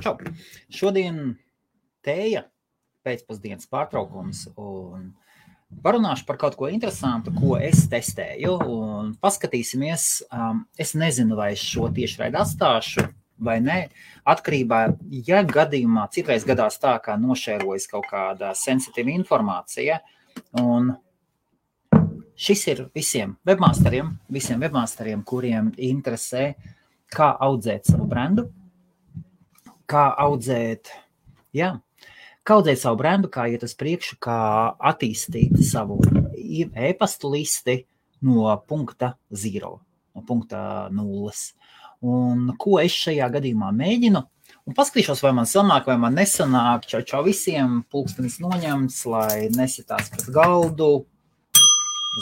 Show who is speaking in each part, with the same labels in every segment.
Speaker 1: Čau. Šodien tēja pēcpusdienas pārtraukums un parunāšu par kaut ko interesantu, ko es testēju un paskatīsimies. Es nezinu, vai es šo tiešraidi atstāšu vai ne. Atkarībā, ja gadījumā citreiz gadās tā, kā nošērojas kaut kāda sensitīva informācija, un šis ir visiem webmasteriem, kuriem interesē, kā audzēt savu brendu, kā audzēt savu brendu, kā iet uz priekšu, kā attīstīt savu e-pastu listi no punkta 0, no punkta 0. Un ko es šajā gadījumā mēģinu? Un paskatīšos, vai man sanāk, vai man nesanāk. Čau visiem, pulkstenis noņemts, lai nesitās pret galdu.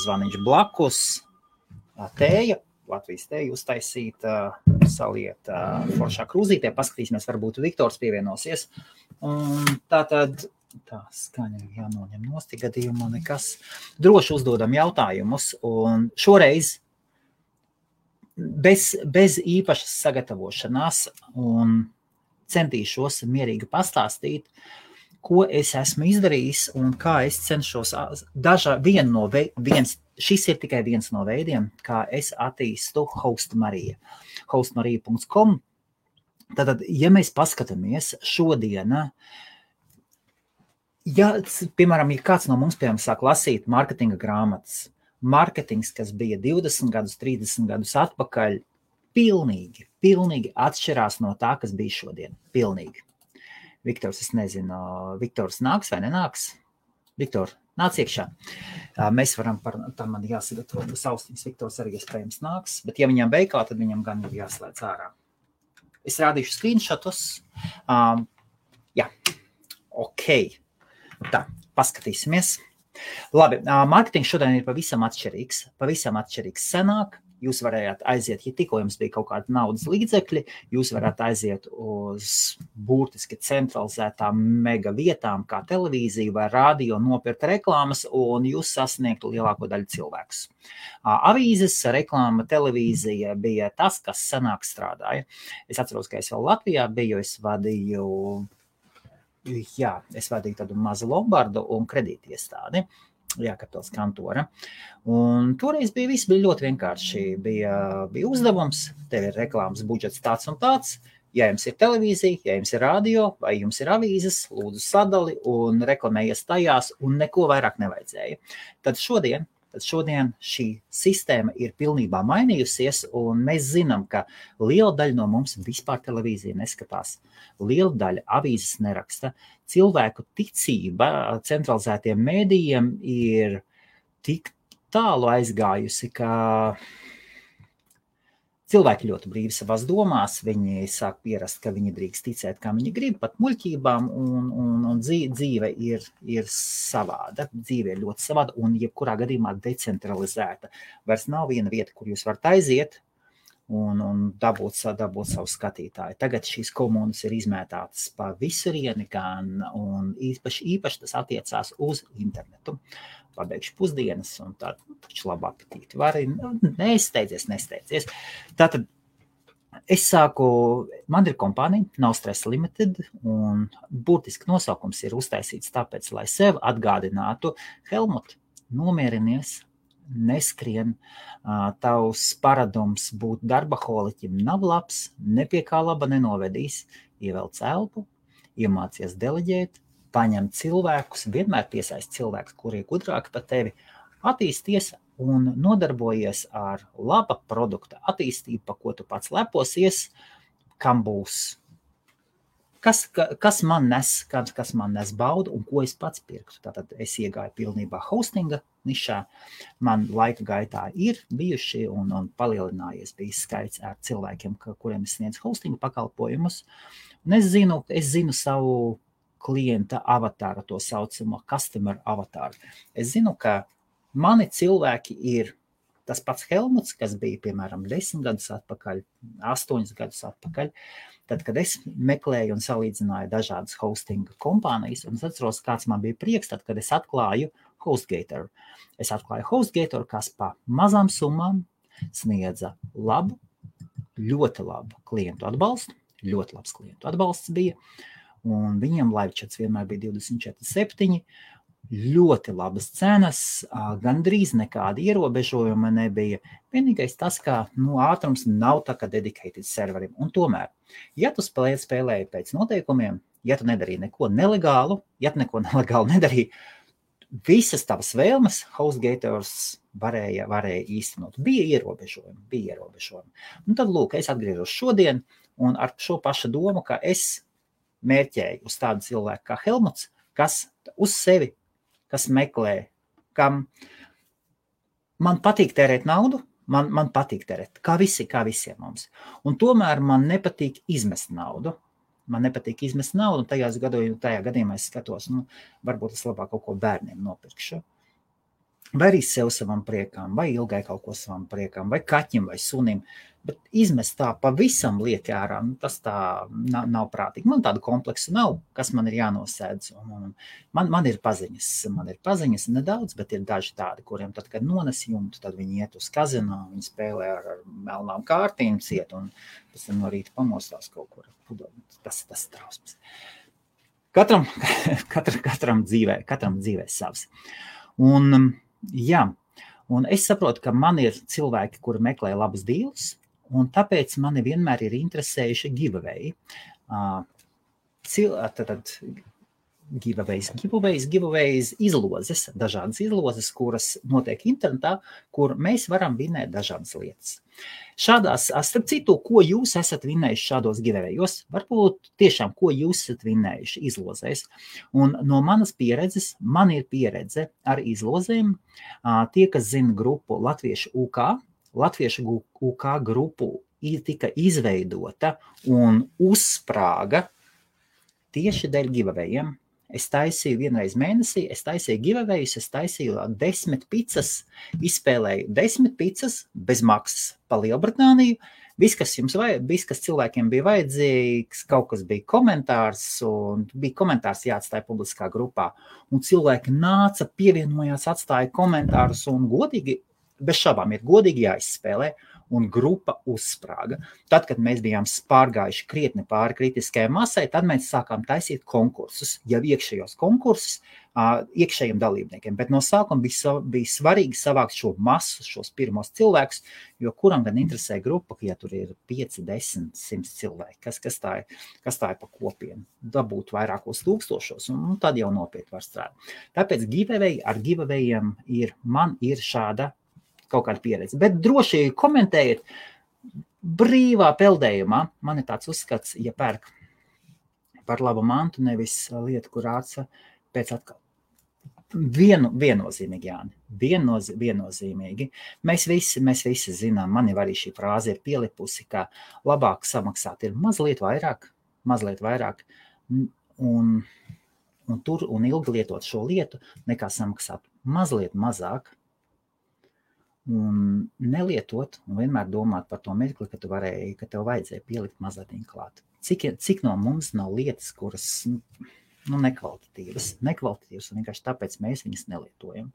Speaker 1: Zvaniņš blakus, tēja, Latvijas tēja uztaisīt, saliet foršā krūzītē, paskatīsimies, varbūt Viktors pievienosies. Un tātad, tā skaņa jānoņem nost, gadījumā nekas. Droši uzdodam jautājumus, un šoreiz bez īpašas sagatavošanās un centīšos mierīgi pastāstīt, ko es esmu izdarījis un kā es cenšos šis ir tikai viens no veidiem, kā es attīstu Hostmarija. Hostmarija.com. Tātad, ja mēs paskatāmies šodien, piemēram, ja kāds no mums, sāk lasīt marketinga grāmatas, marketings, kas bija 20 gadus, 30 gadus atpakaļ, pilnīgi atšķirās no tā, kas bija šodien. Pilnīgi. Viktors, es nezinu, Viktors nāks vai nenāks? Viktor, nāc iekšā. Mēs varam tam man jāsagatavo austiņas. Viktors arī iespējams nāks, bet ja viņam veikā, tad viņam gan ir jāslēdz ārā. Es rādīšu screenshotus. Ok. Tā, paskatīsimies. Labi, marketings šodien ir pavisam atšķirīgs senāk. Jūs varējāt aiziet, ja tikko jums bija kaut kāda naudas līdzekļi, jūs varētu aiziet uz burtiski centralizētām mega vietām, kā televīzija vai radio, nopirkt reklāmas, un jūs sasniegtu lielāko daļu cilvēkus. Avīzes, reklāma, televīzija bija tas, kas senāk strādāja. Es atceros, ka es vēl Latvijā biju, es vadīju tādu mazu lombardu un kredītiestādi. Kapitals kantora. Un toreiz viss bija ļoti vienkārši. Bija uzdevums, tev ir reklāmas budžets tāds un tāds. Ja jums ir televīzija, ja jums ir radio vai jums ir avīzes, lūdzu sadali un reklamējies tajās un neko vairāk nevajadzēja. Tad šodien šī sistēma ir pilnībā mainījusies, un mēs zinām, ka liela daļa no mums vispār televīziju neskatās. Liela daļa avīzes neraksta. Cilvēku ticība centralizētiem mēdījiem ir tik tālu aizgājusi, ka cilvēki ļoti brīvi savās domās, viņi sāk pierast, ka viņi drīkst ticēt, kā viņi grib, pat muļķībām, un dzīve ir savāda. Dzīve ir ļoti savāda un jebkurā gadījumā decentralizēta. Vairs nav viena vieta, kur jūs varat aiziet un dabūt savu skatītāju. Tagad šīs komunas ir izmētātas pa visurieni, un īpaši tas attiecās uz internetu. Pabeigšu pusdienas un taču labu apetīti. Vari, nesteidzies. Tātad man ir kompānija, nav Stress Limited, un būtiski nosaukums ir uztaisīts tāpēc, lai sev atgādinātu, Helmut, nomierinies, neskrien, tavs paradums būt darbaholiķim nav labs, ne pie kā laba nenovedīs, ievelc elpu, iemācies deleģēt, paņem cilvēkus, vienmēr piesaist cilvēkus, kuri ir gudrāki par tevi, attīsties un nodarbojies ar laba produkta attīstību, pa ko tu pats leposies, kam būs, kas man nes baudu un ko es pats pirktu. Tātad es iegāju pilnībā hostinga nišā, man laika gaitā ir bijuši un palielinājies bijis skaits ar cilvēkiem, kuriem es sniedzu hostinga pakalpojumus. Un es zinu savu klienta avatāru, to saucamo customer avatāru. Es zinu, ka mani cilvēki ir tas pats Helmuts, kas bija, piemēram, 10 gadus atpakaļ, 8 gadus atpakaļ, tad, kad es meklēju un salīdzināju dažādas hostinga kompānijas, un es atceros, kāds man bija prieks, tad, kad es atklāju HostGator. Es atklāju HostGator, kas pa mazām summām sniedza labu ļoti labu klientu atbalstu, ļoti labs klientu atbalsts bija, un viņiem live chats vienmēr bija 24/7, ļoti labas cenas, gandrīz nekāda ierobežojuma nebija. Vienīgais tas, ka ātrums nav tā kā dedicated serverim. Un tomēr, ja tu spēlēji pēc noteikumiem, ja tu nedarīji neko nelegālu, ja tu neko nelegālu nedarīji, visas tavas vēlmes HostGator's varēja īstenot. Bija ierobežojumi. Un tad, lūk, es atgriežos šodien, un ar šo pašu domu, ka es mērķēju uz tādu cilvēku kā Helmuts, kas uz sevi, kas meklē, kam man patīk tērēt naudu, man patīk tērēt, kā visiem mums. Un tomēr man nepatīk izmest naudu. Un tajā gadījumā es skatos, varbūt es labāk kaut ko bērniem nopirkšu. Vai arī sev savam priekam, vai ilgai kaut ko savam priekam, vai kaķim, vai sunim. Bet izmest tā pavisam lieki ārā, tas tā nav prātīgi. Man tādu kompleksu nav, kas man ir jānosēdz. Man ir paziņas nedaudz, bet ir daži tādi, kuriem tad, kad nones jumtu, tad viņi iet uz kazino, viņi spēlē ar melnām kārtīm ciet, un pēc tam no rīta pamostās kaut kur. Tas trausmas. Katram dzīvē savs. Un es saprotu, ka man ir cilvēki, kuri meklē labus deals, un tāpēc mani vienmēr ir interesējuši giveaway. Giveaways izlozes, dažādas izlozes, kuras notiek internetā, kur mēs varam vinēt dažādas lietas. Šādās, starp citu, ko jūs esat vinējuši šādos giveawayos, varbūt tiešām, ko jūs esat vinējuši izlozēs. Un no manas pieredzes, man ir pieredze ar izlozēm. Tie, kas zina grupu Latviešu UK grupu tika izveidota un uzsprāga tieši dēļ giveawayiem. Es taisīju vienreiz mēnesī, es taisīju giveawayus, es taisīju 10 picas, izspēlēju 10 picas bez maksas pa Lielbritāniju. Viss, kas cilvēkiem bija vajadzīgs, kaut kas bija komentārs, un bija komentārs jāatstāja publiskā grupā. Un cilvēki nāca, pievienojās, atstāja komentārus, un godīgi, bez šabām ir godīgi jāizspēlē. Un grupa uzsprāga. Tad, kad mēs bijām pārgājuši krietni pāri kritiskajai masai, tad mēs sākām taisīt konkursus, jau iekšējos konkursus iekšējiem dalībniekiem. Bet no sākuma bija svarīgi savākt šo masu, šos pirmos cilvēkus, jo kuram gan interesē grupa, ja tur ir 5, 10, 100 cilvēki, kas tā ir pa kopienu, dabūt vairākos tūkstošos, un tad jau nopietni var strādāt. Tāpēc ar giveawayiem man ir šāda kaut kāda pieredze. Bet droši komentējiet brīvā peldējumā. Man ir tāds uzskats, ja pērk par labu mantu, nevis lietu, kur āca pēc atkal. Viennozīmīgi, Jāni. Viennozīmīgi. Mēs visi zinām, man jau arī šī frāze ir pielipusi, ka labāk samaksāt ir mazliet vairāk, un ilgi lietot šo lietu, nekā samaksāt mazliet mazāk, un nelietot, un vienmēr domāt par to mirkli, ka tev vajadzēja pielikt mazliet klāt. Cik no mums nav lietas, kuras nekvalitatīvas, un vienkārši tāpēc mēs viņas nelietojam.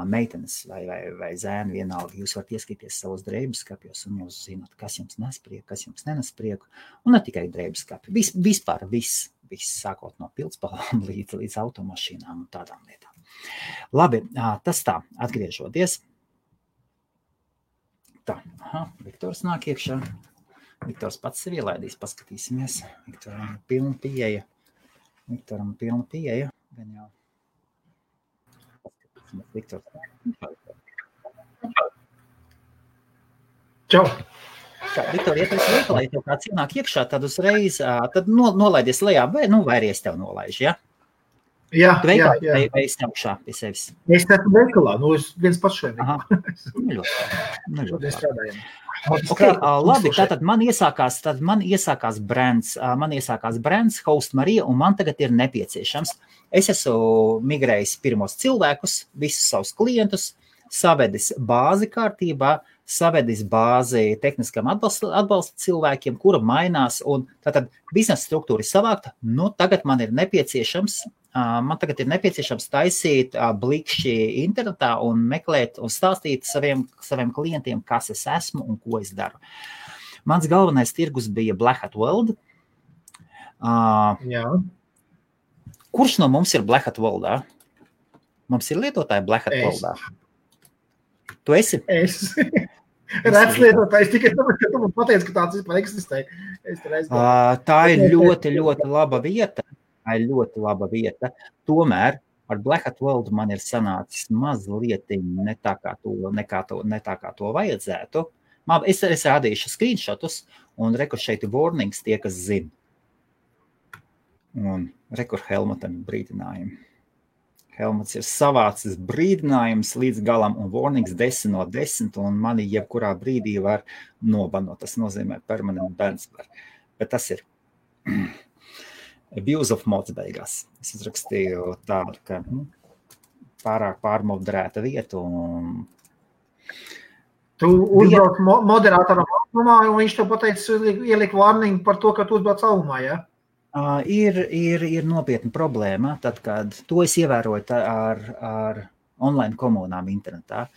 Speaker 1: Meitenes vai zēni vienalga, jūs varat ieskatīties savos drēbeskapjos, un jūs zināt, kas jums nes prieku, kas jums nenes prieku, un ne tikai drēbeskapi. Vispār viss, sākot no pildspalvām līdz automašīnām un tādām lietām. Labi, tas tā, atgriežoties. Tā, Viktors nāk iekšā. Viktors pats sevi ielaidīs, paskatīsimies. Viktoram pilna pieeja. Gan jau. Paskatīsimies, Viktors.
Speaker 2: Čau.
Speaker 1: Viktor, ja tu esi veikalā, ja tev kāds ienāk iekšā, tad uzreiz tad nolaidies lejā, vai arī es tev nolaižu, ja?
Speaker 2: Jā.
Speaker 1: Vai es augšā pie sevis?
Speaker 2: Es esmu veikalā, es viens pats šeit.
Speaker 1: Ļoti strādājam. Labi, tātad man iesākās brands Host Marija, un man tagad ir nepieciešams. Es esmu migrējis pirmos cilvēkus, visus savus klientus, savedis bāzi kārtībā, savedis bāzi tehniskam atbalsta cilvēkiem, kura mainās, un tātad biznesa struktūra ir savākta. Tagad man ir nepieciešams taisīt blikšķi internetā un meklēt un stāstīt saviem klientiem, kas es esmu un ko es daru. Mans galvenais tirgus bija Black Hat World.
Speaker 2: Jā.
Speaker 1: Kurš no mums ir Black Hat Worldā? Mums ir lietotāji Black Hat Worldā. Tu esi?
Speaker 2: Es. Redz lietotājs tikai tāpēc, ka tu man pateici, ka tāds vispār eksistē.
Speaker 1: Tā ir ļoti, ļoti laba vieta. Tā ir ļoti laba vieta. Tomēr ar Black Hat World man ir sanācis mazliet ne tā kā to vajadzētu. Es rādīšu screenshotus un rekur šeit warnings tie, kas zina. Un rekur Helmutam brīdinājumi. Helmuts ir savācis brīdinājums līdz galam un warnings 10 no 10 un mani jebkurā brīdī var nobanot. Tas nozīmē permanent bans. Bet tas ir abuse of mods beigās. Es izrakstīju tādu, ka pārāk pārmoderēta vieta un...
Speaker 2: Tu uzbrauc moderātoram augumā un viņš tev pateica ielikt warning par to, ka tu uzbrauc augumā, ja?
Speaker 1: Ir nopietna problēma, tad, kad to es ievēroju ar online komunām internetā.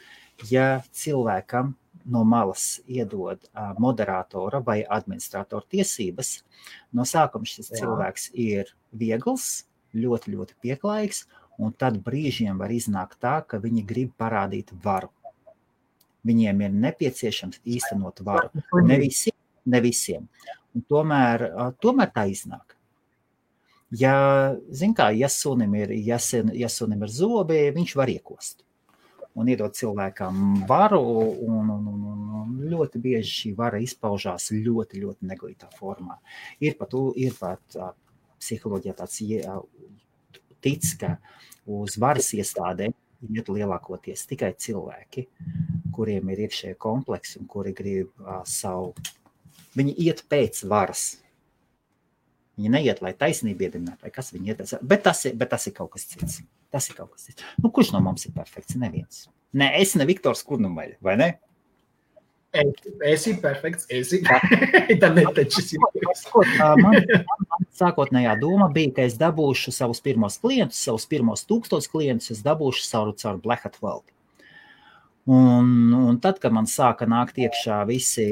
Speaker 1: Ja cilvēkam no malas iedod moderatora vai administratora tiesības, no sākuma šis cilvēks ir viegls, ļoti, ļoti pieklājīgs, un tad brīžiem var iznākt tā, ka viņi grib parādīt varu. Viņiem ir nepieciešams īstenot varu. Ne visiem. Un tomēr tā iznāk. Ja sunim ir zobi, viņš var iekost un iedot cilvēkam varu, un ļoti bieži šī vara izpaužās ļoti, ļoti neglītā formā. Ir pat psiholoģijā tāds tic, ka uz varas iestādēm iet lielākoties tikai cilvēki, kuriem ir iekšēji kompleksi un kuri grib viņi iet pēc varas. Viņi neiet, lai taisnība iedibinātu, vai kas viņi iet. Bet tas ir kaut kas cits. Kurš no mums ir perfekts? Neviens. Ne, es ne Viktors Kurnumaļa, vai ne?
Speaker 2: Esi perfekts, esi. Tā netečis.
Speaker 1: Man sākotnējā doma bija, ka es dabūšu savus pirmos klientus, savus pirmos 1000 klientus, es dabūšu caur Black Hat World. Un tad, kad man sāka nākt iekšā visi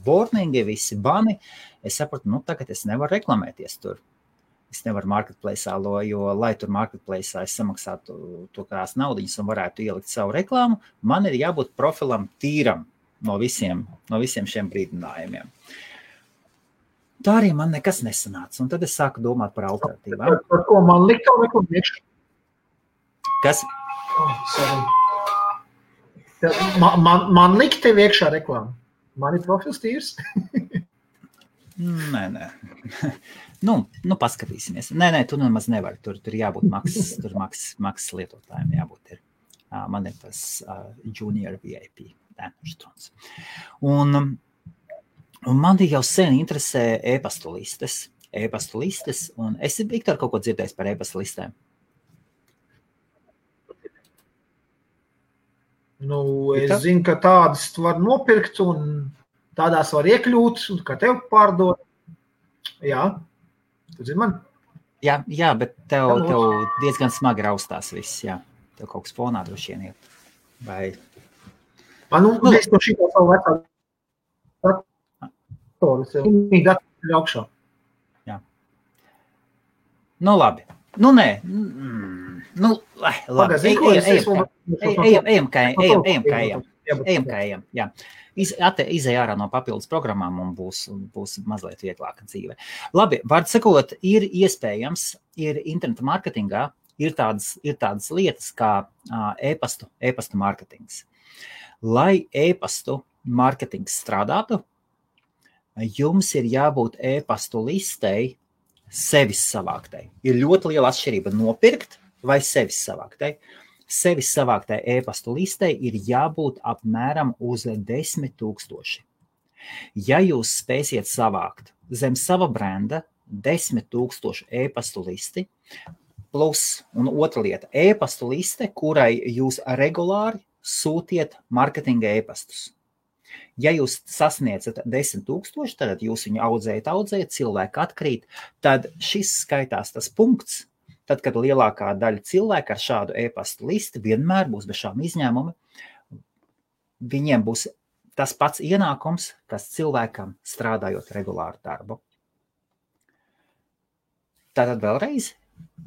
Speaker 1: warningi, visi bani, es sapratu, tagad es nevaru reklamēties tur. Es nevaru marketplace'ā, jo, lai tur marketplace'ā es samaksātu to kādās naudiņas un varētu ielikt savu reklāmu, man ir jābūt profilam tīram no visiem šiem brīdinājumiem. Tā arī man nekas nesanāca, un tad es sāku domāt par alternatīvām.
Speaker 2: Par ko man likt to reklāmu iekšā?
Speaker 1: Kas?
Speaker 2: Man likt tev iekšā reklāmu. Man ir profils tīrs?
Speaker 1: Nē. Paskatīsimies. Nē, tu nemaz nevari. Tur jābūt maksas lietotājiem jābūt ir. Man ir tas junior VIP. Un man jau sen interesē e-pastu listes. Un esi, Viktor, kaut ko dzirdējis par e-pastu listēm?
Speaker 2: Es zinu, ka tādas var nopirkt un tādās var iekļūt, un ka tev pārdod. Jā, tu zini man?
Speaker 1: Jā, bet tev diezgan smagi raustās viss, jā. Tev kaut kas fonā droši vien iet. Vai...
Speaker 2: Es to šī savu vecā datoru, viņi datoru augšā.
Speaker 1: Jā. Labi. Nē. Labi. Ejam kā ejam. Jā. Izej ārā no papildus programmām un būs mazliet vieglāka dzīve. Labi, vārdu sakot, ir iespējams, ir interneta marketingā, ir tādas lietas kā e-pastu marketings. Lai e-pastu marketings strādātu, jums ir jābūt e-pastu listei sevis savāktai. Ir ļoti liela atšķirība nopirkt vai sevis savāktai. Sevis savāktai e-pastu listei ir jābūt apmēram uz 10 000. Ja jūs spēsiet savākt zem sava brenda 10 000 e-pastu listi, plus, un otra lieta, e-pastu liste, kurai jūs regulāri sūtiet marketinga e-pastus. Ja jūs sasniedzat 10 000, tad jūs viņu audzējat, cilvēki atkrīt, tad šis skaitās tas punkts, tad, kad lielākā daļa cilvēku ar šādu e-pastu listi vienmēr būs bez šām izņēmumi, viņiem būs tas pats ienākums, kas cilvēkam strādājot regulāru darbu. Tātad vēlreiz,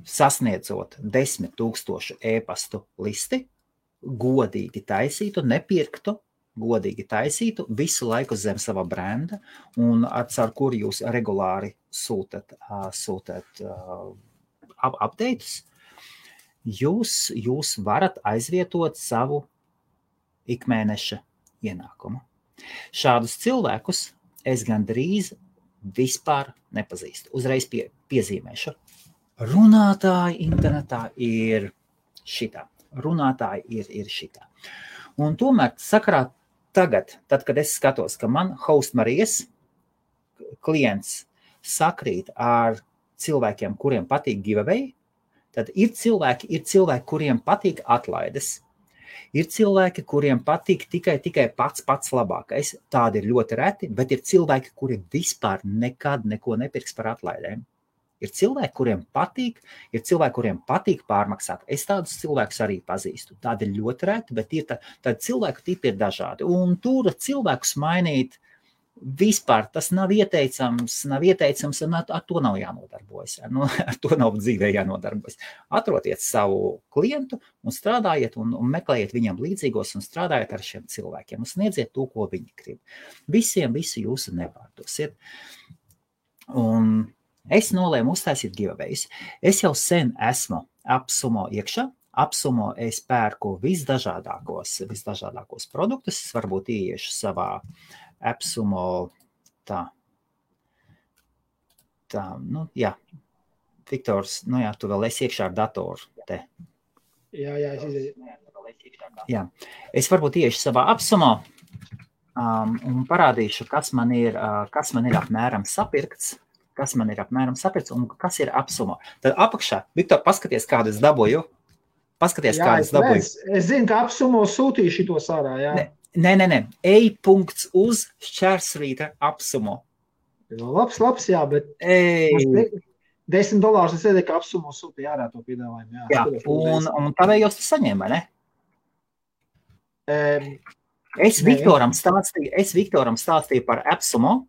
Speaker 1: sasniedzot 10 000 e-pastu listi, godīgi taisītu, nepirktu, godīgi taisītu, visu laiku zem sava brenda, un caur kuru jūs regulāri sūtat updates, jūs varat aizvietot savu ikmēneša ienākumu. Šādus cilvēkus es gandrīz vispār nepazīstu. Uzreiz piezīmēšu. Runātāji internetā ir šitā. Runātāji ir šitā. Un tomēr sakarā tagad, tad, kad es skatos, ka man Host Marijas klients sakrīt ar cilvēkiem, kuriem patīk giveaway, tad ir cilvēki, kuriem patīk atlaides. Ir cilvēki, kuriem patīk tikai pats labākais. Tādi ir ļoti reti, bet ir cilvēki, kuri vispār nekad neko nepirks par atlaidēm. Ir cilvēki, kuriem patīk pārmaksāt. Es tādus cilvēkus arī pazīstu. Tādi ir ļoti reti, bet tādi cilvēku tipi ir dažādi. Un tur cilvēkus mainīt vispār tas nav ieteicams, un ar to nav jānodarbojas. Ar to nav dzīvē jānodarbojas. Atrodiet savu klientu un strādājiet un meklējiet viņam līdzīgos un strādājiet ar šiem cilvēkiem un sniedziet to, ko viņi grib. Visiem visu jūsu nepārdosiet. Un es nolēmu uztaisīt giveaways. Es jau sen esmu AppSumo iekšā. AppSumo es pērku visdažādākos produktus. Es varbūt ieiešu savā AppSumo Viktors, tu vēl esi iekšā ar datoru te.
Speaker 2: Jā, es izēju.
Speaker 1: Jā, es varbūt ieiešu savā AppSumo un parādīšu, kas man ir apmēram sapirkts, un kas ir AppSumo. Tad apakšā, Viktor, paskaties, kādu es dabūju.
Speaker 2: Es zinu, ka AppSumo sūtīja šitos ārā, jā.
Speaker 1: Nē. E.uz šķērsvītra AppSumo.
Speaker 2: Labs, jā, bet $10 es iedēju, ka AppSumo sūtīja ārā to piedāvājumu.
Speaker 1: Jā, un tavējos tu saņēma, ne? Es Viktoram stāstīju par AppSumo,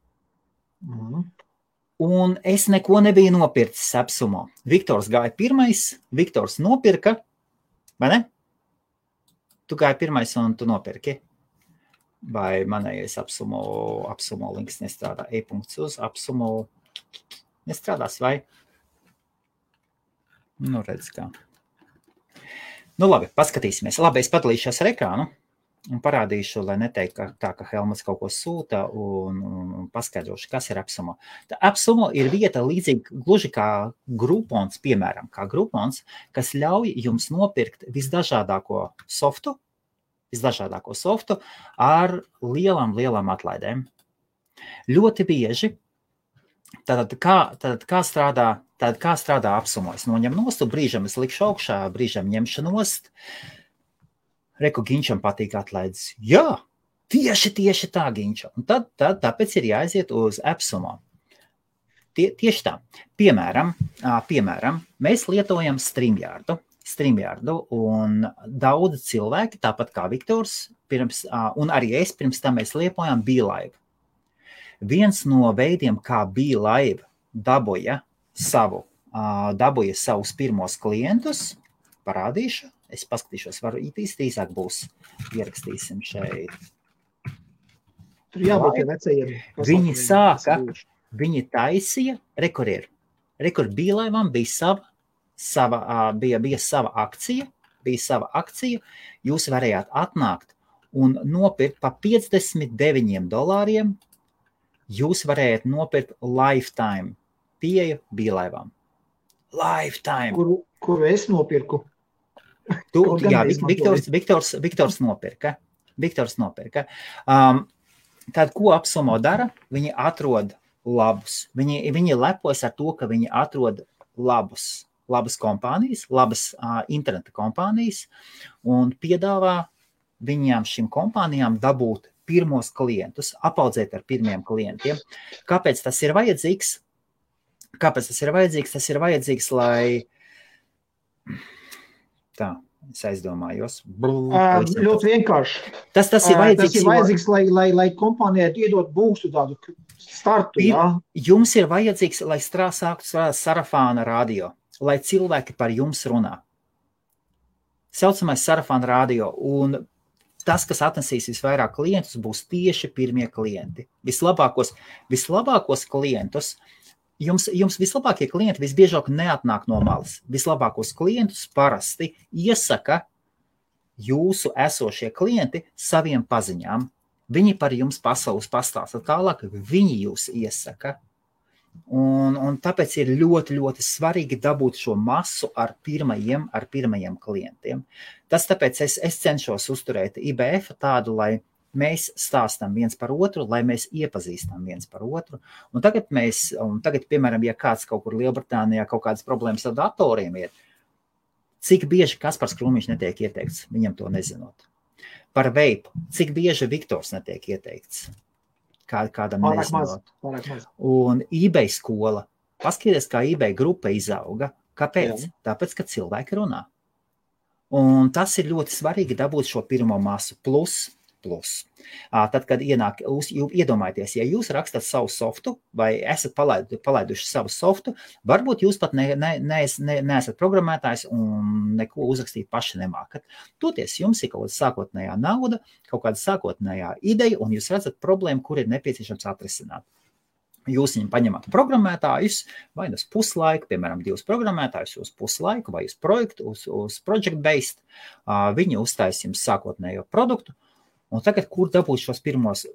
Speaker 1: un es neko nebiju nopircis AppSumo. Viktors gāja pirmais, Viktors nopirka, vai ne? Tu gāji pirmais un tu nopirki. Vai manējais AppSumo links nestrādā. E.uz AppSumo nestrādās, vai? Redz kā. Labi, paskatīsimies. Labi, es padalīšos ar ekrānu un parādīšu, lai neteiktu tā, ka Helmuts kaut ko sūta un paskaidrošu, kas ir AppSumo. AppSumo ir vieta līdzīgi gluži kā Groupons, piemēram, kas ļauj jums nopirkt visdažādāko softu ar lielām atlaidēm. Ļoti bieži, tad kā strādā AppSumo? Es noņem nost, brīžam es likšu augšā, brīžam ņemšu nost. Reku Ginčam patīk atlaides. Jā, tieši tā, Ginča. Un tad tāpēc ir jāaiziet uz AppSumo. Tieši tā. Piemēram, mēs lietojam StreamYardu, un daudzi cilvēki, tāpat kā Viktors, un arī es pirms tam mēs lietojām BeLive. Viens no veidiem, kā BeLive dabūja savus pirmos klientus, parādīšu, es paskatīšos, varu īsāk būs, ierakstīsim šeit.
Speaker 2: Tur jābūt vecajiem.
Speaker 1: Viņi taisīja, rekur BeLive'am bija sava akcija, jūs varējāt atnākt un nopirkt pa $59. Jūs varējāt nopirkt lifetime pieeju BeLive'am. Lifetime.
Speaker 2: Kuru es nopirku?
Speaker 1: Jā, Viktors nopirka. Tad, ko AppSumo dara? Viņi atrod labus. Viņi lepojas ar to, ka viņi atrod labas kompānijas, labas interneta kompānijas un piedāvā šīm kompānijām dabūt pirmos klientus, apaudzēt ar pirmiem klientiem. Kāpēc tas ir vajadzīgs? Tas ir vajadzīgs, lai Es aizdomājos.
Speaker 2: Ļoti vienkārši.
Speaker 1: Tas ir vajadzīgs.
Speaker 2: Tas ir vajadzīgs, lai kompānijai iedot būstu tādu startu, jā.
Speaker 1: Jums ir vajadzīgs, lai sāktu sarafāna radio, lai cilvēki par jums runā. Saucamais sarafāna radio, un tas, kas atnesīs visvairāk klientus, būs tieši pirmie klienti. Vislabākos klientus, jums vislabākie klienti visbiežāk neatnāk no malas. Vislabākos klientus parasti iesaka jūsu esošie klienti saviem paziņām. Viņi par jums pasaules pastāsta tālāk, viņi jūs iesaka. Un tāpēc ir ļoti, ļoti svarīgi dabūt šo masu ar pirmajiem klientiem. Tas tāpēc es cenšos uzturēt IBF tādu, lai mēs stāstam viens par otru, lai mēs iepazīstam viens par otru. Un tagad, piemēram, ja kāds kaut kur Lielbritānijā kaut kādas problēmas ar datoriem ir, cik bieži Kaspars Krūmiņš netiek ieteikts, viņam to nezinot. Par veipu, cik bieži Viktors netiek ieteikts. Kādam nezinot. Un eBay skola. Paskaties, kā eBay grupa izauga. Kāpēc? Jā. Tāpēc, ka cilvēki runā. Un tas ir ļoti svarīgi dabūt šo pirmo masu plus. Tad, kad iedomājieties, ja jūs rakstat savu softu vai esat palaiduši savu softu, varbūt jūs pat neesat programmētājs un neko uzrakstīt paši nemākat. Toties jums ir kaut kāda sākotnējā nauda, kaut kāda sākotnējā ideja, un jūs redzat problēmu, kur ir nepieciešams atrisināt. Jūs viņam paņemat programmētājus, vai uz puslaiku, piemēram, 2 programmētājus uz puslaiku, vai uz projektu, uz project-based, viņi uztais jums sākotnējo produktu. Un tagad, kur dabūt šos pirmos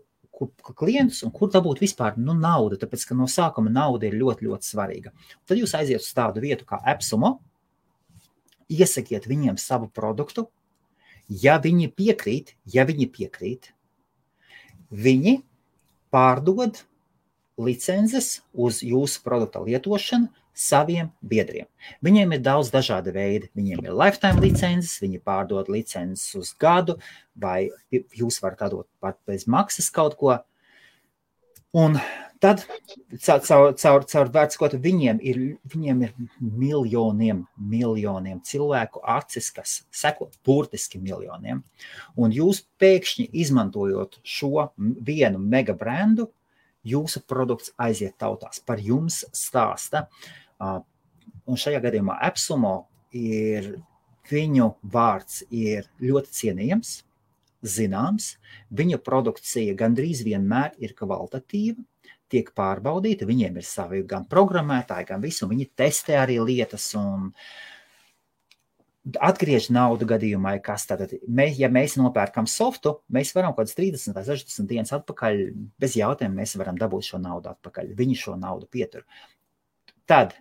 Speaker 1: klientus un kur dabūt vispār naudu, tāpēc, ka no sākuma nauda ir ļoti, ļoti svarīga. Tad jūs aiziet uz tādu vietu kā Epsumo, iesakiet viņiem savu produktu, ja viņi piekrīt, viņi pārdod licences uz jūsu produkta lietošanu saviem biedriem. Viņiem ir daudz dažādi veidi. Viņiem ir lifetime licences, viņi pārdod licences uz gadu, vai jūs varat atdot pat bez maksas kaut ko. Un tad caur vērtskot viņiem ir miljoniem cilvēku acis, kas seko burtiski miljoniem. Un jūs pēkšņi izmantojot šo vienu mega brandu, jūsu produkts aiziet tautās, par jums stāsta. Un šajā gadījumā Epsumo viņu vārds ir ļoti cienījams, zināms, viņu produkcija gandrīz vienmēr ir kvalitatīva, tiek pārbaudīta, viņiem ir savi gan programmētāji, gan visu, viņi testē arī lietas un atgriež naudu gadījumā, kas tātad, ja mēs nopērkam softu, mēs varam kaut kāds 30 vai 60 dienas atpakaļ, bez jautājuma mēs varam dabūt šo naudu atpakaļ, viņi šo naudu pietur. Tad,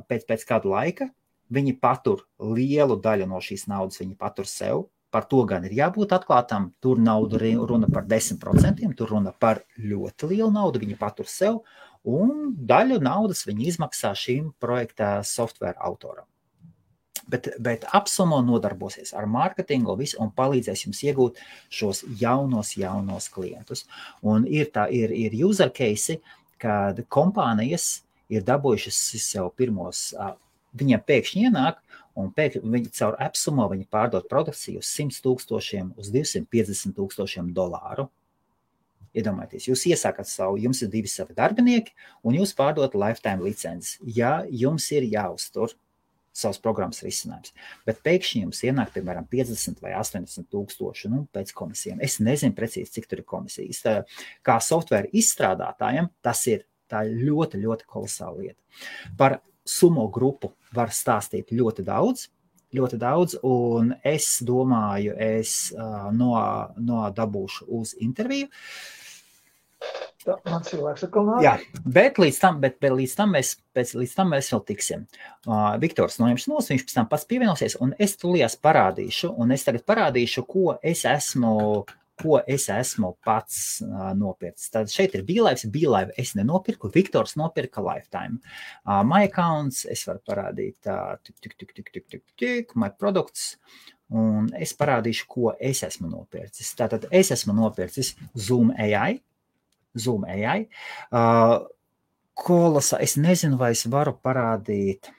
Speaker 1: pēc kādu laika, viņi patur lielu daļu no šīs naudas, viņi patur sev, par to gan ir jābūt atklātam, tur nauda runa par 10%, tur runa par ļoti lielu naudu, viņi patur sev, un daļu naudas viņi izmaksā šīm projekta software autoram. Bet Epsumo nodarbosies ar mārketingu un palīdzēs jums iegūt šos jaunos klientus. Un ir user case, kad kompānijas ir dabūjušas sev pirmos, viņiem pēkšņi ienāk, un viņi caur Epsumo viņi pārdod produkciju uz 100,000, uz 250,000 dolāru. Iedomājieties, jūs iesākat jums ir 2 savi darbinieki, un jūs pārdot lifetime licences. Ja jums ir jāuztur savas programmas risinājums, bet pēkšņi jums ienāk, piemēram, 50 vai 80,000, pēc komisijām. Es nezinu precīzi, cik tur ir komisijas. Kā software izstrādātājiem, tā ir ļoti, ļoti kolosāla lieta. Par Sumo grupu var stāstīt ļoti daudz, un es domāju, dabūšu uz interviju.
Speaker 2: Man cilvēks atkal nāk.
Speaker 1: Jā, bet līdz tam mēs vēl tiksim. Viktors noņems nos, viņš pēc tam pats pievienosies, un es tulījās parādīšu, ko es esmu pats nopircis. Tad šeit ir BeLive es nenopirku, Viktors nopirka Lifetime. My accounts, es varu parādīt my products, un es parādīšu, ko es esmu nopircis. Tātad es esmu nopircis Zoom AI. Kolosa, es nezinu, vai es varu parādīt.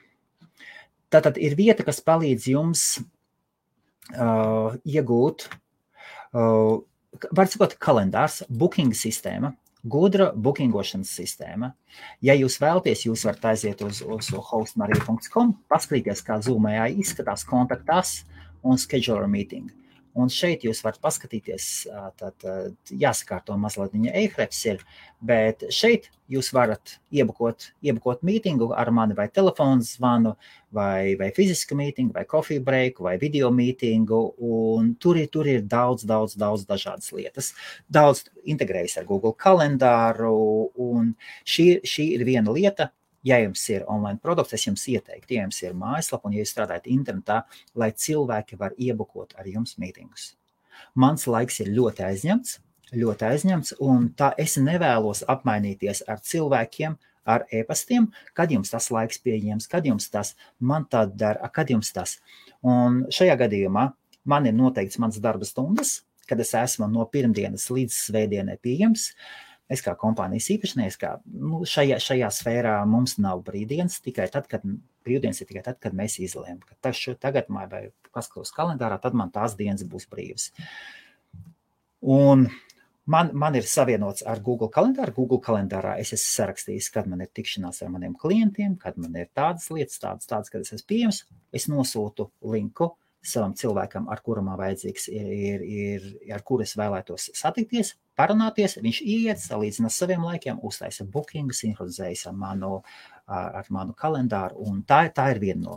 Speaker 1: Tātad ir vieta, kas palīdz jums iegūt, var sakot, kalendārs, booking sistēma, gudra bookingošanas sistēma. Ja jūs vēlaties, jūs varat aiziet uz hostmarija.com, paskatīties, kā Zoom AI izskatās, kontaktās un scheduler meeting. Un šeit jūs varat paskatīties, tad jāsakārto mazliet viņa e-hrefs ir, bet šeit jūs varat iebukot mītingu ar mani vai telefonu zvanu, vai fizisku mītingu, vai coffee breaku, vai video mītingu, un tur ir daudz dažādas lietas. Daudz integrējas ar Google kalendāru, un šī ir viena lieta. Ja jums ir online produkts, es jums ieteiktu, ja jums ir mājaslapa un ja jūs strādājat internetā, lai cilvēki var iebukot ar jums mītingus. Mans laiks ir ļoti aizņemts, un tā es nevēlos apmainīties ar cilvēkiem, ar e-pastiem, kad jums tas laiks pieejams, kad jums tas, man tā dara, kad jums tas. Un šajā gadījumā man ir noteikts mans darba stundas, kad es esmu no pirmdienas līdz svētdienai pieejams. Es kā kompānijas īpašnieks, šajā sfērā mums nav brīvdienas, brīvdienas ir tikai tad, kad mēs izlēmam, ka tagad vai paskatos kalendārā, tad man tās dienas būs brīvas. Un man ir savienots ar Google kalendāru. Google kalendārā es esmu sarakstījis, kad man ir tikšanās ar maniem klientiem, kad man ir tādas lietas, tādas, kad es esmu pieejams. Es nosūtu linku savam cilvēkam, ar kuru man vajadzīgs ar kuru es vēlētos satikties, parunāties, viņš iet, salīdzina saviem laikiem, uztaisa bookingu, sinhronizējas ar manu kalendāru, un tā ir viena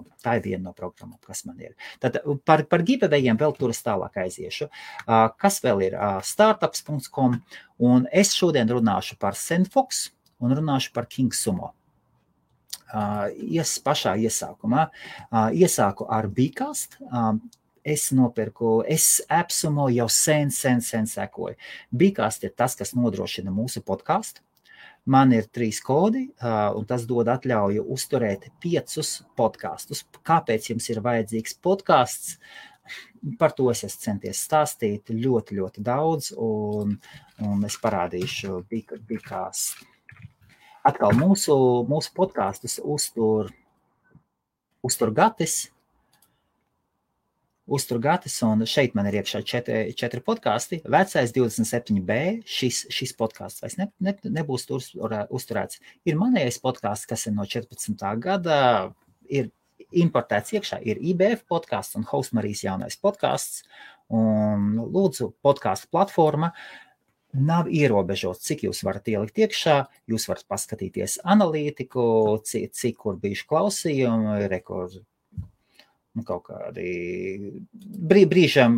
Speaker 1: no programmām, kas man ir. Tad par giveawayiem vēl tur es tālāk aiziešu. Kas vēl ir? Startups.com, un es šodien runāšu par Sendfox un runāšu par KingSumo. Pašā iesākumā. Iesāku ar Bcast. Es AppSumo jau sen sekoju. Bcast ir tas, kas nodrošina mūsu podcastu. Man ir 3 kodi, un tas dod atļauju uzturēt 5 podkastus. Kāpēc jums ir vajadzīgs podcasts? Par to es esmu centies stāstīt ļoti daudz, un es parādīšu Bcast. Atkal mūsu podkastus uztur Gatis, un šeit man ir iekšā 4 podkasti. Vecais 27B, šis podkasts vairs nebūs uzturēts. Ir manējais podkasts, kas ir no 14. gada, ir importēts iekšā, ir IBF podkasts un Hostmarijas jaunais podkasts, un lūdzu podkastu platforma. Nav ierobežots, cik jūs varat ielikt iekšā, jūs varat paskatīties analītiku, cik kur bijuši klausījumi, kaut kādi brīžam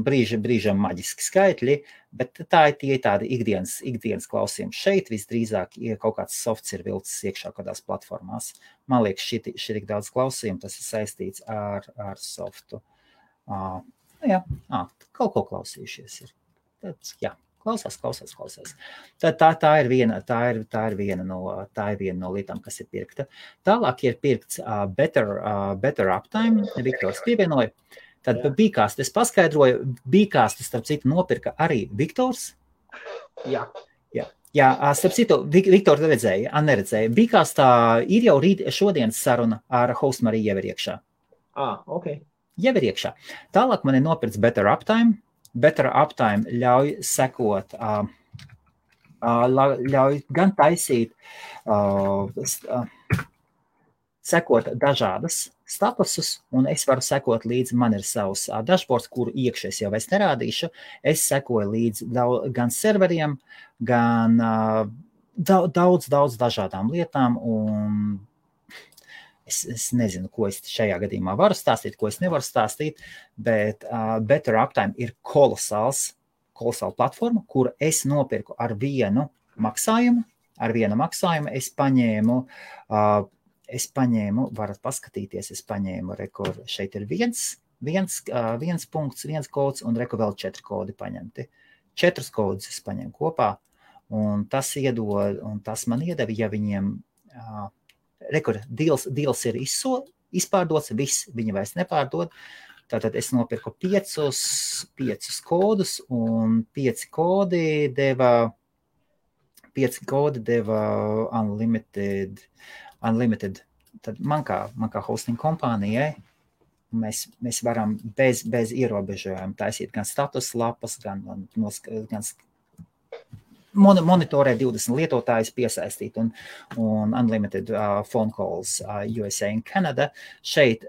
Speaker 1: maģiski skaitļi, bet tā ir tāda ikdienas klausījumi. Šeit visdrīzāk kaut kāds softs ir vilcis iekšā kādās platformās. Man liekas, šī tik daudz klausījumu, tas ir saistīts ar softu. Kaut ko klausījušies ir. Tad, jā. Klausās. Tā ir viena no lietām, kas ir pirkta. Tālāk ir pirkts Better Uptime. Viktors pievienoja. Tad Bcast es paskaidroju. Bcast, starp citu, nopirka arī Viktors. Jā, starp citu, Viktor neredzēja. Bcastā ir jau šodienas saruna ar Hostmariju jau ir iekšā.
Speaker 2: Ok.
Speaker 1: Jau ir iekšā. Tālāk man ir nopirkts Better Uptime. Better Uptime ļauj sekot, ļauj gan taisīt, sekot dažādas statusus, un es varu sekot līdzi, man ir savs dashboards, kuru iekšies jau es nerādīšu. Es sekoju līdzi gan serveriem, gan daudz dažādām lietām, un es nezinu, ko es šajā gadījumā varu stāstīt, ko es nevaru stāstīt, bet Better Uptime ir kolosāla platforma, kuru es nopirku ar vienu maksājumu. Es paņēmu, varat paskatīties, šeit ir viens punkts, viens kods, un vēl 4 kodi paņemti. 4 kodus es paņēmu kopā, un tas man iedeva, ja viņiem... Deals ir izpārdots, viss viņi vairs nepārdod. Tātad es nopirku 5 kodus, un 5 kodi deva unlimited. Tad man kā hosting kompānijai Mēs varam bez ierobežojuma taisīt gan status lapas, gan monitorēt 20 lietotājus piesaistīt un unlimited phone calls USA un Canada. Šeit,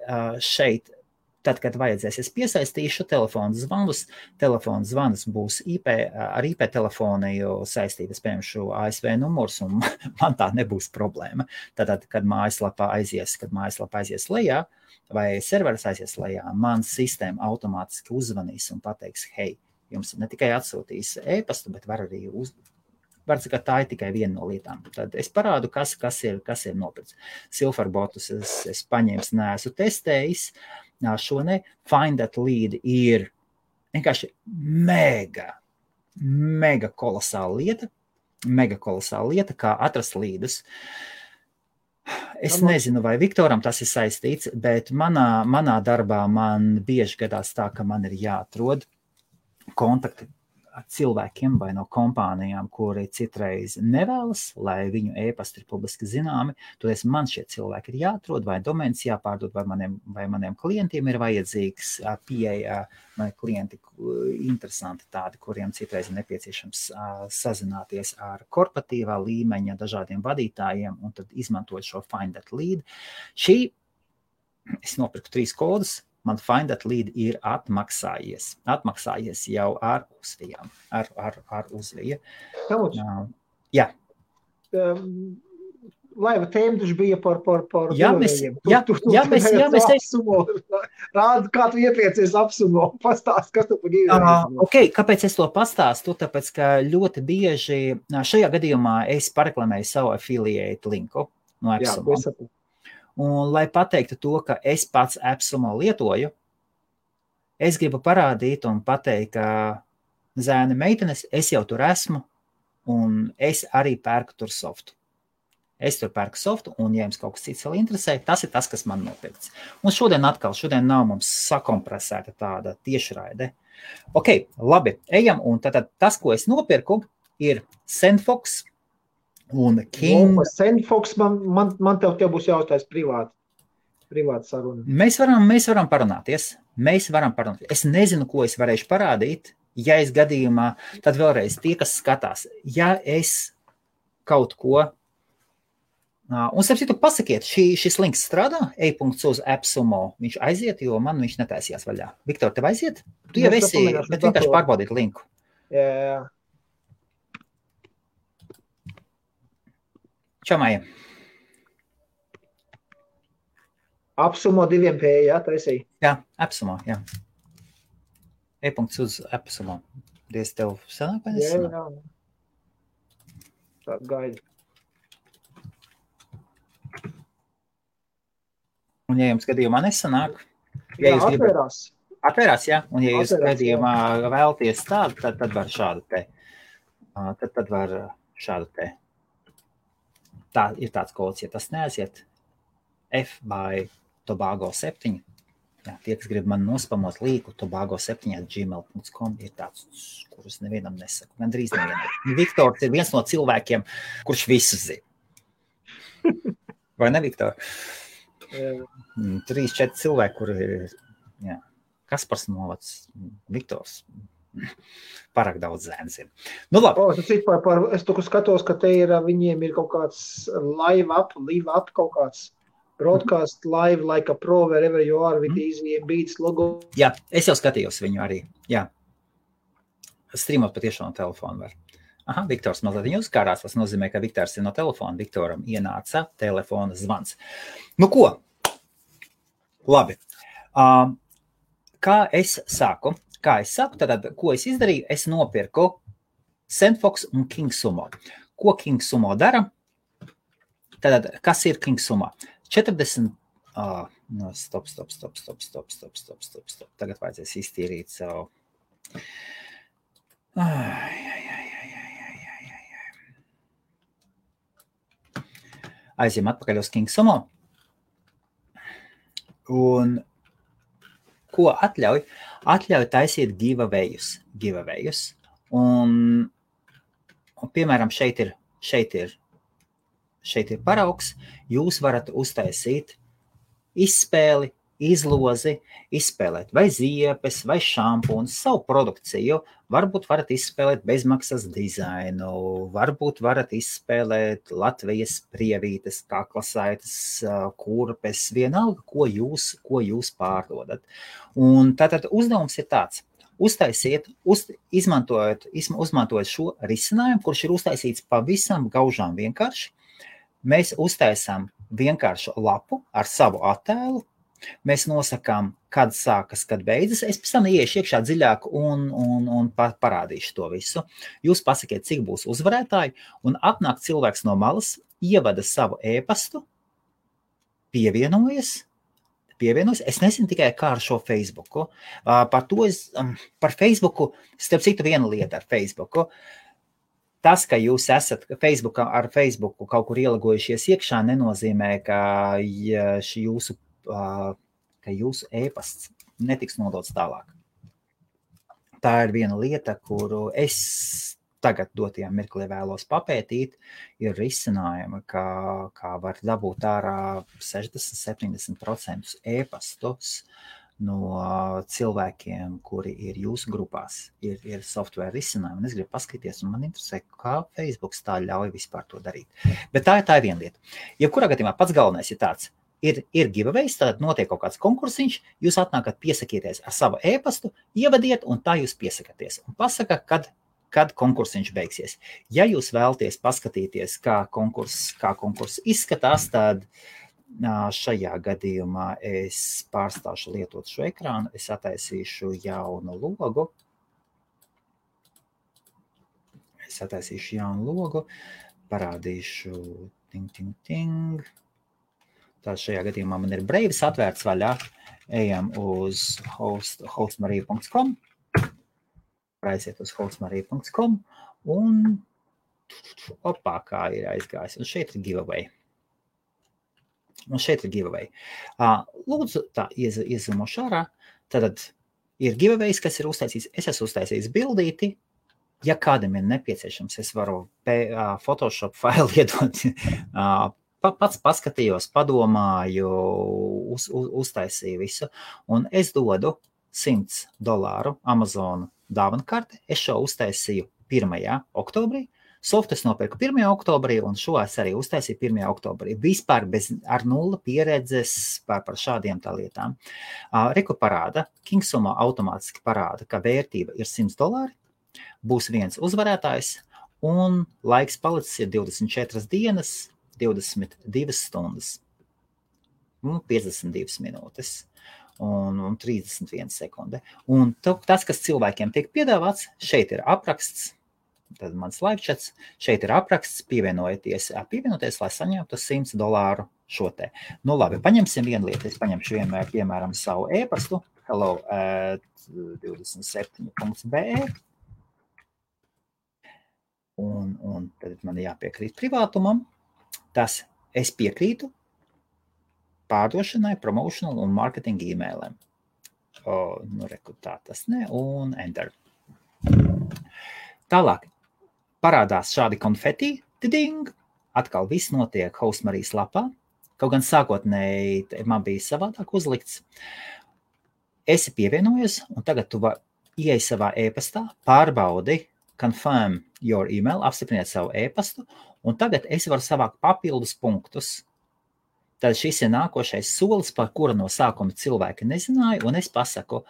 Speaker 1: tad, kad vajadzēs, es piesaistīšu telefonu zvanus būs ar IP telefoniju saistītas, piemēram, ASV numurs, un man tā nebūs problēma. Tad, kad mājaslapa aizies lejā, vai serveris aizies lejā, man sistēma automātiski uzvanīs un pateiks, hei, jums ne tikai atsūtīs e-pastu, bet var arī var teikt, ka tā ir tikai viena no lietām. Tad es parādu, kas ir nopirts. Silverbotus es paņēmu, neesmu testējis. Šo ne. Find that lead ir vienkārši mega kolosāla lieta, kā atrast līdus. Es nezinu, vai Viktoram tas ir saistīts, bet manā darbā man bieži gadās tā, ka man ir jāatrod kontakti ar cilvēkiem vai no kompānijām, kuri citreiz nevēlas, lai viņu e-pasti ir publiski zināmi. Toties man šie cilvēki ir jāatrod, vai domēns jāpārdod, vai maniem klientiem ir vajadzīgs pieeja, vai klienti interesanti tādi, kuriem citreiz ir nepieciešams sazināties ar korporatīvā līmeņa dažādiem vadītājiem, un tad izmantot šo Find that lead. Es nopirku 3 kodus. Man Find that lead ir atmaksājies jau ar uzvijām, ar uzviju. Jā.
Speaker 2: Laiva tēma taču bija par Rādi, kā tu iepiecies apsumo, pastāst, kas tu par giveaway.
Speaker 1: Ok, kāpēc es to pastāstu? Tāpēc, ka ļoti bieži šajā gadījumā es pareklamēju savu affiliate linku no AppSumo. Un, lai pateiktu to, ka es pats AppSumo lietoju, es gribu parādīt un pateikt, ka zēni meitenes, es jau tur esmu, un es arī pērku tur softu. Es tur pērku softu, un, ja jums kaut kas cits vēl interesē, tas ir tas, kas man nopirkts. Un šodien nav mums sakompresēta tāda tiešraide. Ok, labi, ejam, un tad tas, ko es nopirku, ir SendFox, un King.
Speaker 2: SendFox, man tev būs jāuztais privāta saruna.
Speaker 1: Mēs varam parunāties. Es nezinu, ko es varēšu parādīt. Ja es gadījumā, tad vēlreiz tie, kas skatās, ja es kaut ko, un starp citu pasakiet, šis links strādā, e-punkts uz AppSumo, viņš aiziet, jo man viņš netaisījās vaļā. Viktor, tev aiziet? Tu jau esi, bet vienkārši pārbaudīt linku.
Speaker 2: Jā.
Speaker 1: Čau, Maija.
Speaker 2: AppSumo 2P, jā, taisīja?
Speaker 1: Jā, AppSumo, jā. E-punkts uz AppSumo. Diez tev sanāk, vai nesanāk?
Speaker 2: Jā. Tā gaida.
Speaker 1: Un ja jums gadījumā nesanāk,
Speaker 2: ja jūs atverās.
Speaker 1: Atvērās, jā. Un ja jūs gadījumā vēlties tādu, tad var šādu te. Tad var šādu te. Tā ir tāds kods, ja tas neaiziet, F by Tobago 7. Jā, tie, kas grib man nospamot līku, tobago7@gmail.com ir tāds, kurus nevienam nesaku. Gandrīz nevienam. Viktors ir viens no cilvēkiem, kurš visu zina. Vai ne, Viktor? 3-4 cilvēki, kuri ir, jā, Kaspars Novacs, Viktors. Pārāk daudz zēns ir. Nu, labi.
Speaker 2: Es tu skatos, ka te ir, viņiem ir kaut kāds live up, kaut kāds broadcast live like a pro wherever you are with easy beats logo.
Speaker 1: Jā, es jau skatījos viņu arī. Jā. Streamot patiešām no telefona var. Aha, Viktors mazliet uzkārās, tas nozīmē, ka Viktors ir no telefona. Viktoram ienāca telefona zvans. Nu, ko? Labi. Kā es saku, tad, ko es izdarīju? Es nopirku SendFox un KingSumo. Ko KingSumo dara? Tad, kas ir KingSumo? 40... Stop. Tagad vajadzēs iztīrīt savu... Aizjām atpakaļ uz KingSumo. Un ko atļauj? Atļauj taisīt giveawayus. Un piemēram, šeit ir paraugs. Jūs varat uztaisīt izspēli izlozi izspēlēt vai ziepes, vai šampūns, savu produkciju. Varbūt varat izspēlēt bezmaksas dizainu, varbūt varat izspēlēt Latvijas prievītes, kaklasaites, kurpes, vienalga, ko jūs pārdodat. Un tātad uzdevums ir tāds. Uztaisiet, izmantojot šo risinājumu, kurš ir uztaisīts pavisam gaužām vienkārši. Mēs uztaisām vienkāršu lapu ar savu attēlu. Mēs nosakām, kad sākas, kad beidzas. Es pēc tam iešu iekšā dziļāk un parādīšu to visu. Jūs pasakiet, cik būs uzvarētāji, un atnāk cilvēks no malas, ievada savu e-pastu, pievienojas. Es nezinu tikai kā ar šo Facebooku. Par Facebooku, starp citu viena lieta ar Facebooku. Tas, ka jūs esat ar Facebooku kaut kur ielagojušies iekšā, nenozīmē, ka jūsu e-pasts netiks nodots tālāk. Tā ir viena lieta, kuru es tagad dotajā mirklī vēlos papētīt, ir risinājumi, kā var dabūt ārā 60-70% e-pastus no cilvēkiem, kuri ir jūsu grupās, ir software risinājumi. Un es gribu paskatīties, un man interesē, kā Facebooks tā ļauj vispār to darīt. Bet tā ir viena lieta. Jebkurā gadījumā pats galvenais ir tāds, ir giveaways, tad notiek kaut kāds konkursiņš, jūs atnākat, piesakieties ar savu e-pastu, ievadiet, un tā jūs piesakaties. Un pasaka, kad konkursiņš beigsies. Ja jūs vēlaties paskatīties, kā konkurss izskatās, tad šajā gadījumā es pārstāšu lietot šo ekrānu, es attaisīšu jaunu logu. Parādīšu ting. Tā šajā gadījumā man ir Braves atvērts vaļā. Ejam uz hostmarija.com. Aiziet uz hostmarija.com un kā ir aizgājis. Un šeit ir giveaway. Lūdzu, tā iezumošu ārā. Tad ir giveaways, kas ir uztaisīts. Es esmu uztaisījis bildīti. Ja kādam ir nepieciešams, es varu Photoshop failu iedot. Pats paskatījos, padomāju, uztaisīju visu. Un es dodu $100 Amazon dāvana karte. Es šo uztaisīju 1. oktobrī. Softu es nopirku 1. oktobrī, un šo es arī uztaisīju 1. oktobrī. Vispār ar nula pieredzes par šādiem tā lietām. Reku parāda, Kingsumo automātiski parāda, ka vērtība ir $100, būs viens uzvarētājs, un laiks palicis ir 24 dienas, 22 stundas, 52 minūtes. Un 31 sekunde. Un tas, kas cilvēkiem tiek piedāvāts, šeit ir apraksts, tad mans live chats, šeit ir apraksts, pievienoties, lai saņemtu $100 šo te. Nu labi, paņemsim vienu lietu, es paņemšu vienmēr, piemēram, savu e-pastu, hello@27.be, un tad man jāpiekrīt privātumam, tas es piekrītu, pārdošanai, promotional un marketing e-mailiem. Tā tas ne, un enter. Tālāk parādās šādi konfeti, tiding, atkal viss notiek Hostmarijas lapā, kaut gan sākotnēji man bija savādāk uzlikts. Esi pievienojies, un tagad tu ieej savā e-pastā, pārbaudi, confirm your email, apstipriniet savu e-pastu, un tagad es varu savākt papildus punktus. Tad šis ir nākošais solis, par kuru no sākuma cilvēki nezināja, un es pasaku,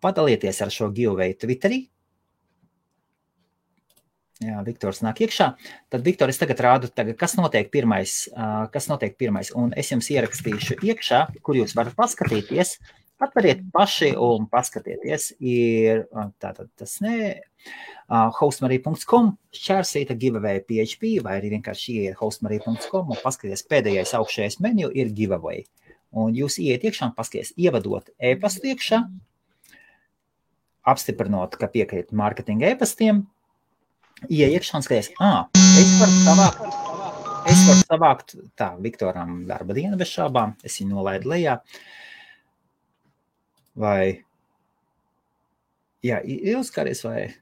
Speaker 1: padalieties ar šo giveaway Twitterī. Jā, Viktors nāk iekšā. Tad, Viktor, es tagad rādu, kas notiek pirmais, un es jums ierakstīšu iekšā, kur jūs varat paskatīties. Atveriet paši un paskatieties. Ir tātad tas hostmarija.com, šķērsīta giveaway PHP, vai arī vienkārši ieiet hostmarija.com un paskaties pēdējais augšējais menu ir giveaway. Un jūs ieiet iekšā un paskaties, ievadot e-pastu iekšā, apstiprinot, ka piekrīt marketinga e-pastiem, ieiet iekšā un skaties, es varu savākt, tā, Viktoram darba diena bez šābām, es viņu nolaidu lejā, vai, jā, ilgskaries vai,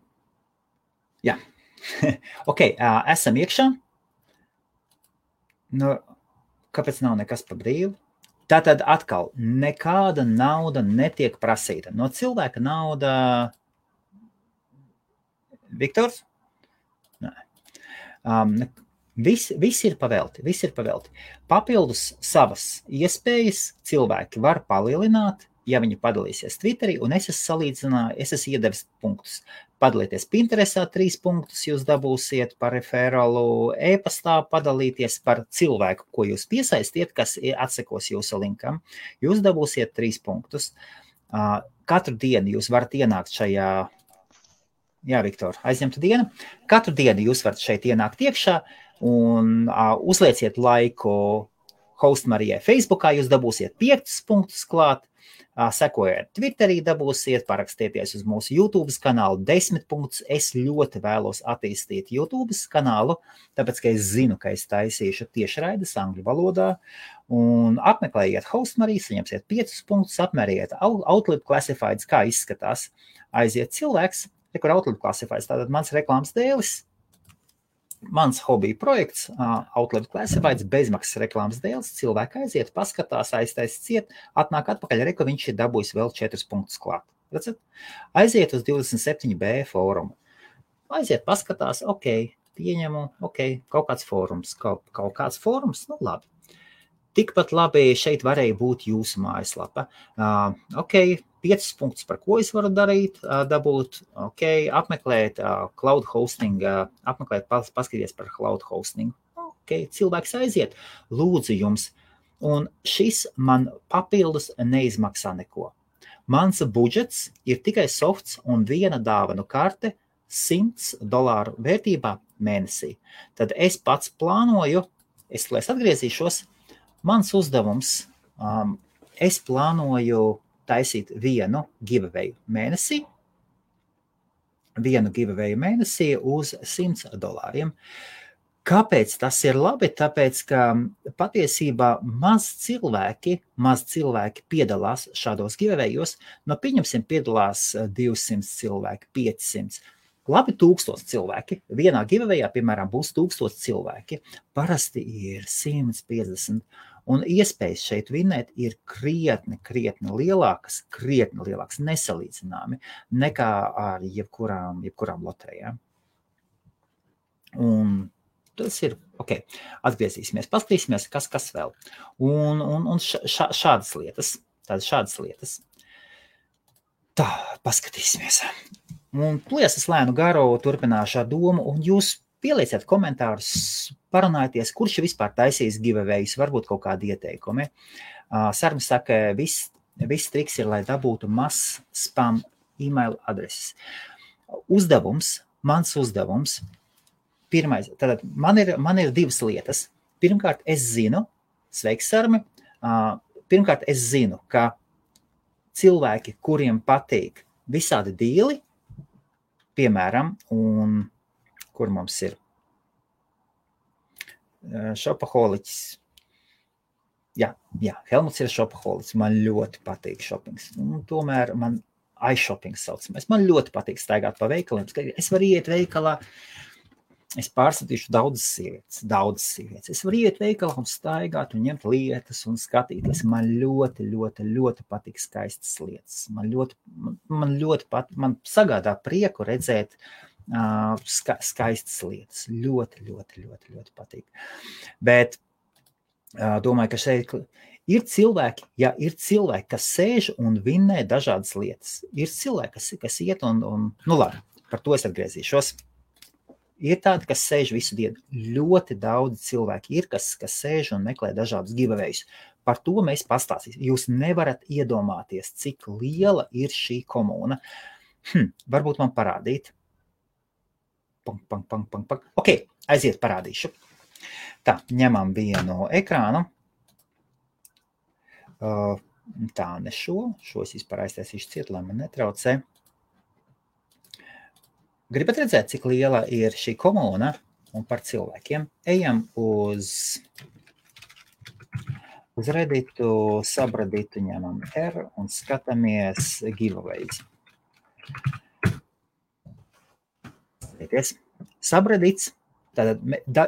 Speaker 1: jā, ok, esam iekšā, nu, kāpēc nav nekas pa brīvu, Tātad atkal, nekāda nauda netiek prasīta. No cilvēka nauda... Viktors? Nē. Viss ir pavelti. Papildus savas iespējas cilvēki var palielināt, ja viņi padalīsies Twitterī, un es esmu iedevis punktus. Padalīties Pinterestā 3 punktus jūs dabūsiet par referālu, e-pastā padalīties par cilvēku, ko jūs piesaistiet, kas atsekos jūsu linkam. Jūs dabūsiet 3 punktus. Katru dienu jūs varat ienākt šajā, jā, Viktor, aizņemta diena. Katru dienu jūs varat šeit ienākt iekšā un uzlieciet laiku Host Marijai Facebookā, jūs dabūsiet 5 punktus klāt. Sekojiet Twitterī, dabūsiet, parakstieties uz mūsu YouTube kanālu 10 punktus. Es ļoti vēlos attīstīt YouTube kanālu, tāpēc, ka es zinu, ka es taisīšu tiešraides angļu valodā, un apmeklējiet Host Mariju, saņemsiet 5 punktus, apmēriet Outlook Classifieds, kā izskatās. Aiziet cilvēks, kur Outlook Classifieds, tātad mans reklāmas dēlis, mans hobija projekts, Outlook Classifieds, bezmaksas reklāmas dēls, cilvēki aiziet, paskatās, aiztais ciet, atnāk atpakaļ, ka viņš ir dabūjis vēl 4 punktus klāt. Redzat? Aiziet uz 27B fórumu. Aiziet, paskatās, pieņemu, kaut kāds fórums, kaut kāds fórums, nu labi. Tikpat labi šeit varēja būt jūsu mājaslapa. 5 punktus, par ko es varu darīt, dabūt, apmeklēt cloud hosting, paskatīties par cloud hosting. Cilvēks aiziet, lūdzu jums, un šis man papildus neizmaksā neko. Mans budžets ir tikai softs un viena dāvanu karte $100 vērtībā mēnesī. Tad es pats plānoju, es atgriezīšos, mans uzdevums, es plānoju taisīt vienu giveaway mēnesī uz $100. Kāpēc tas ir labi? Tāpēc, ka patiesībā maz cilvēki piedalās šādos giveawayos, no pieņemsim piedalās 200 cilvēki, 500. Labi 1000 cilvēki. Vienā giveawayā, piemēram, būs 1000 cilvēki. Parasti ir 150. Un iespējas šeit vinēt ir krietni lielākas, nesalīdzināmi nekā ar jebkurām loterijām. Un tas ir, atgriezīsimies, paskatīsimies, kas vēl. Un šādas lietas. Tā, paskatīsimies. Un pliesas lēnu garu turpināšu ar domu, un jūs pielieciet komentārus, parunājieties, kurš vispār taisīs giveaways, varbūt kaut kādi ieteikumi. Sarmi saka, viss triks ir, lai dabūtu mazs spam e-mail adreses. Mans uzdevums, pirmais, tātad man ir 2 lietas. Pirmkārt, es zinu, sveiks, Sarmi, pirmkārt, es zinu, ka cilvēki, kuriem patīk visādi dīli, piemēram, un kur mums ir šopaholiķis. Jā, Helmuts ir šopaholiķis. Man ļoti patīk šopings. Tomēr man iShoppings saucamais. Man ļoti patīk staigāt pa veikaliem. Es varu iet veikalā, es pārskatīšu daudzas sievietes. Es varu iet veikalā un staigāt un ņemt lietas un skatīties. Man ļoti patīk skaistas lietas. Man sagādā prieku redzēt skaistas lietas. Ļoti patīk. Bet domāju, ka šeit ir cilvēki, kas sēž un vinnē dažādas lietas. Ir cilvēki, kas iet un nu labi, par to es atgriezīšos. Ir tādi, kas sēž visu dienu. Ļoti daudz cilvēki ir, kas sēž un meklē dažādus giveaways. Par to mēs pastāstīsim. Jūs nevarat iedomāties, cik liela ir šī komūna. Varbūt man parādīt. Aiziet, parādīšu. Tā, ņemam vienu ekrānu. Tā, ne šo es vispār aiztaisīšu ciet, lai man netraucē. Gribat redzēt, cik liela ir šī komūna un par cilvēkiem? Ejam uz Redditu, subredditu, ņemam R un skatāmies giveaways. Subreddits, tātad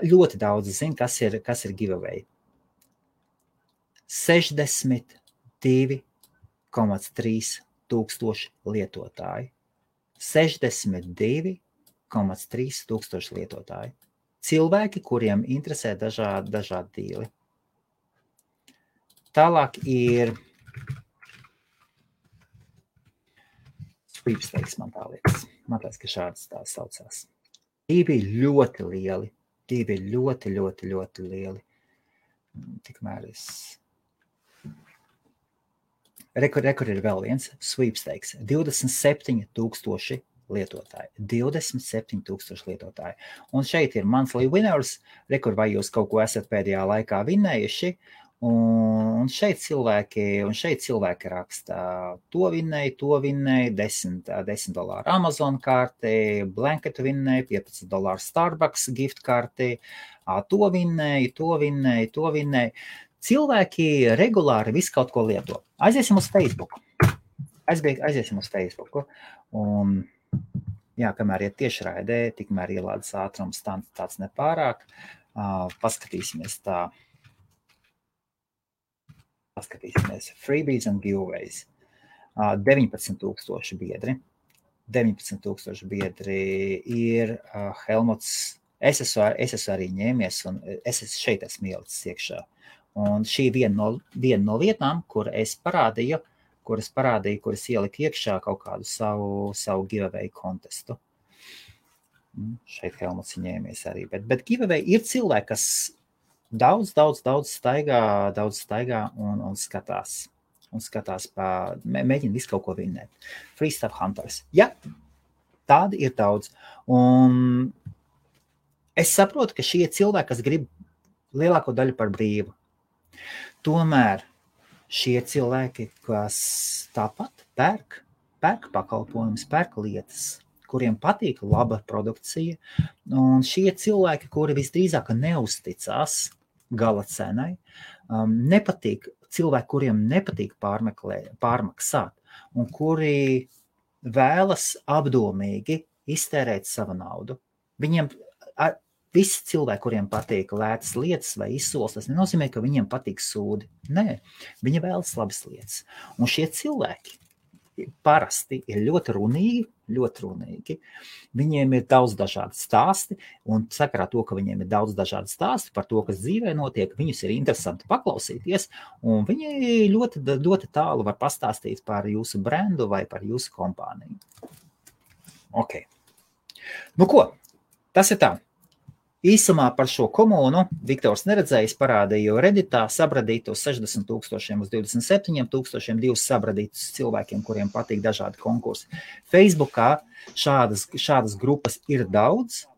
Speaker 1: ļoti daudz zina, kas ir giveaway. 62,3 tūkstoši lietotāji. 62,3 tūkstoši lietotāji. Cilvēki, kuriem interesē dažādi dīli. Tālāk ir sweepstakes, man liekas, ka šādas tā saucās. Divi ļoti lieli. Tikmēr es... Rekur ir vēl viens sweepstakes. 27,000 lietotāji. 27,000 lietotāji. Un šeit ir monthly winners. Rekur, vai jūs kaut ko esat pēdējā laikā vinnējuši. Un šeit cilvēki raksta, to vinnēja, $10 Amazon karti, blanketu vinnēja, $15 Starbucks gift karti, to vinnēja. Cilvēki regulāri visu kaut ko lieto. Aiziesim uz Facebook. Aiziesim uz Facebook. Un, jā, kamēr iet tiešraidē, tikmēr ielādes ātrums tāds nepārāk. Paskatīsimies tā. Freebies and giveaways. 19,000 biedri. 19,000 biedri ir Helmuts. Es esmu arī ņēmies, un šeit esmu ielicis iekšā. Un šī viena no vietām, kuras ieliku iekšā kaut kādu savu giveaway kontestu. Šeit Helmuts ņēmies arī. Bet giveaway ir cilvēki, kas daudz staigā un skatās. Mēģina visu kaut ko vinnēt. Free Stuff Hunters. Jā, tādi ir daudz. Un es saprotu, ka šie cilvēki, kas grib lielāko daļu par brīvu. Tomēr šie cilvēki, kas tāpat pērk pakalpojumus, pērk lietas, kuriem patīk laba produkcija, un šie cilvēki, kuri visdrīzāk neuzticās gala cenai, cilvēki, kuriem nepatīk pārmaksāt, un kuri vēlas apdomīgi iztērēt savu naudu. Viņiem visi cilvēki, kuriem patīk lētas lietas vai izsoles, tas nenozīmē, ka viņiem patīk sūdi. Nē, viņi vēlas labas lietas. Un šie cilvēki parasti ir ļoti runīgi. Viņiem ir daudz dažādi stāsti, un sakarā to, ka viņiem ir daudz dažādi stāsti par to, kas dzīvē notiek, viņus ir interesanti paklausīties, un viņi ļoti tālu var pastāstīt par jūsu brendu vai par jūsu kompāniju. Ok. Nu ko, tas ir tā. Īsumā par šo komunu Viktors neredzējis parādīju Redditā sabradītos 60,000 uz 27,000 divus sabradītus cilvēkiem, kuriem patīk dažādi konkursi. Facebookā šādas grupas ir daudz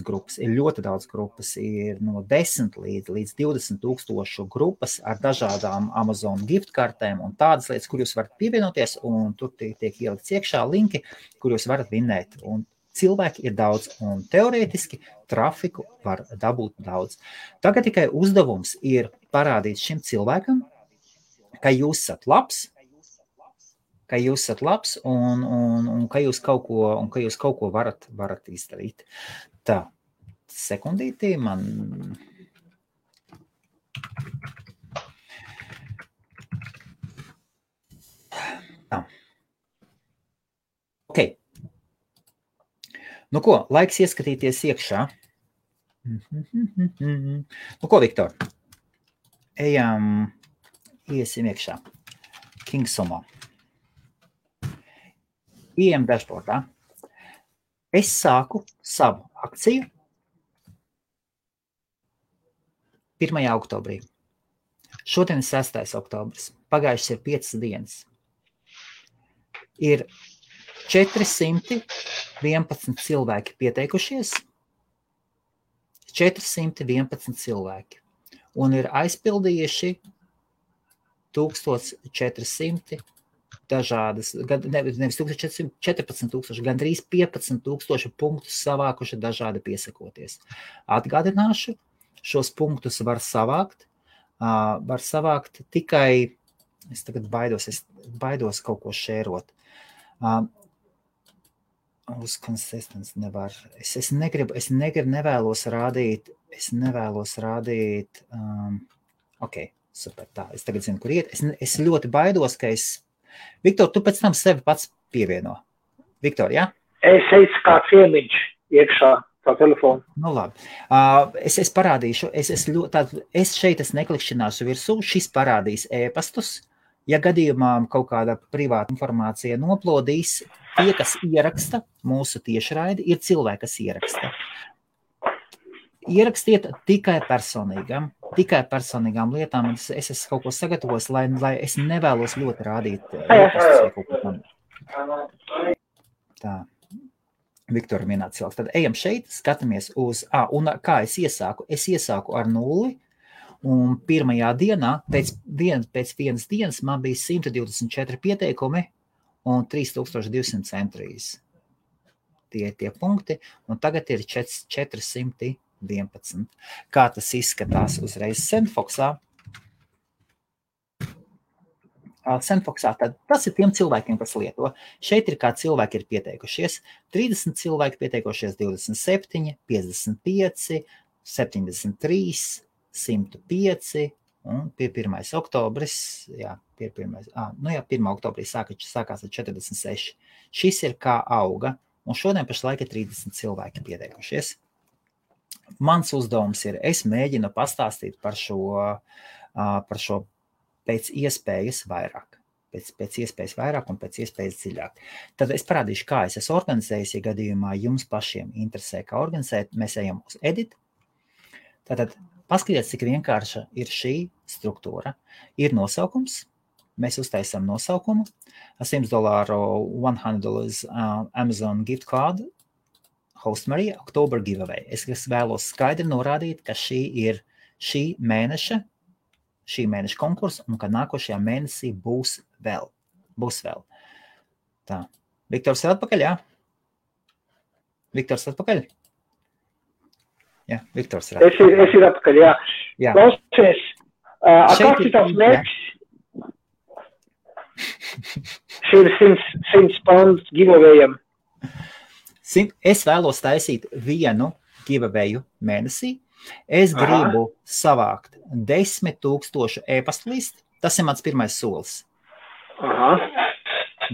Speaker 1: grupas, ir ļoti daudz grupas, ir no 10 līdz 20,000 grupas ar dažādām Amazon gift kartēm un tādas lietas, kur jūs varat pievienoties, un tur tiek ielikts iekšā linki, kur jūs varat vinnēt. Un cilvēki ir daudz, un teorētiski trafiku var dabūt daudz. Tagad tikai uzdevums ir parādīt šim cilvēkam, ka jūs esat labs, un ka jūs kaut ko varat izdarīt. Tā, sekundītī man... Tā. Ok. Nu ko, laiks ieskatīties iekšā. Nu ko, Viktor? Iesim iekšā. Kingsomā. Ejam dashboardā. Es sāku savu akciju 1. oktobrī. Šodien ir 6. oktobris. Pagājušas ir 5 dienas. Ir 411 cilvēki pieteikušies, 411 cilvēki, un ir aizpildījuši 1400 dažādas, nevis 14,000, gandrīz 15,000 punktus savākuši dažādi piesakoties. Atgādināšu, šos punktus var savākt tikai, es tagad baidos kaut ko šērot. Uz konsistents nevar. Es nevēlos rādīt, ok, Super, tā. Es tagad zinu, kur iet. Es ļoti baidos, ka Viktor, tu pēc tam sevi pats pievieno. Viktor, jā?
Speaker 2: Es teicu, kāds iemiņš iekšā tā telefonu.
Speaker 1: Nu, labi. Es parādīšu. Es šeit neklikšķināšu virsū. Šis parādīs e-pastus. Ja gadījumā kaut kāda privāta informācija noplodīs, tie, kas ieraksta mūsu tiešraidi, ir cilvēki, kas ieraksta. Ierakstiet tikai personīgām lietām. Es esmu kaut ko sagatavojis, lai es nevēlos ļoti rādīt e-pastus vai kaut ko tam. Tā. Viktora minēta cilvēks. Tad ejam šeit, skatāmies uz, un kā es iesāku? Es iesāku ar 0. Un pirmajā dienā, pēc vienas dienas, man bija 124 pieteikumi un 3200 entries. Tie ir tie punkti, un tagad ir 411. Kā tas izskatās uzreiz Sendfoxā? Sendfoxā, tad tas ir tiem cilvēkiem, kas lieto. Šeit ir kā cilvēki ir pieteikušies. 30 cilvēki pieteikušies, 27, 55, 73, 105 un pie 1. oktobris, 1. oktobrī sākās ar 46. Šis ir kā auga, un šodien pašlaik ir 30 cilvēki pieteikušies. Mans uzdevums ir, es mēģinu pastāstīt par šo pēc iespējas vairāk. Pēc iespējas vairāk un pēc iespējas dziļāk. Tad es parādīšu, kā es esmu organizējis, ja gadījumā jums pašiem interesē, kā organizēt. Mēs ejam uz edit. Tātad paskatieties, cik vienkārša ir šī struktūra. Ir nosaukums, mēs uztaisām nosaukumu, $100, $100 Amazon gift card, Host Marija, October giveaway. Es vēlos skaidri norādīt, ka šī ir šī mēneša konkursa un ka nākošajā mēnesī būs vēl. Tā. Viktors ir atpakaļ, jā? Viktors atpakaļ? Jā, Viktors ir atpakaļ.
Speaker 2: Es ir atpakaļ, jā. Klausies, kāds ir tās mērķis? Šī ir 100 pounds giveawayam.
Speaker 1: Es vēlos taisīt vienu giveawayu mēnesī. Es gribu savākt 10,000 e-pastu listi. Tas ir mans pirmais solis.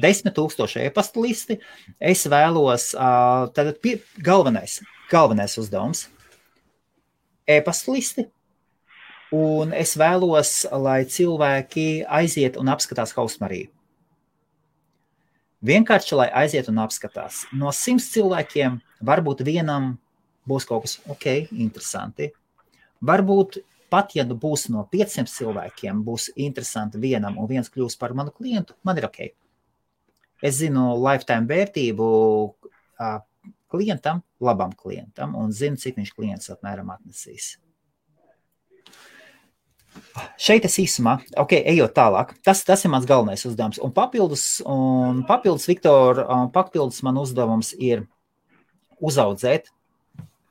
Speaker 1: 10,000 e-pastu listi. Es vēlos, tātad galvenais uzdevums. E-pastu listi. Un es vēlos, lai cilvēki aiziet un apskatās Host Mariju. Vienkārši, lai aiziet un apskatās. No 100 cilvēkiem varbūt vienam būs kaut kas interesanti. Varbūt pat, ja būs no 500 cilvēkiem, būs interesanti vienam un viens kļūs par manu klientu, man ir ok. Es zinu lifetime vērtību klientam, labam klientam, un zinu, cik viņš klients apmēram atnesīs. Šeit es īsumā, ejot tālāk, tas ir mans galvenais uzdevums. Un papildus, Viktor, man uzdevums ir uzaudzēt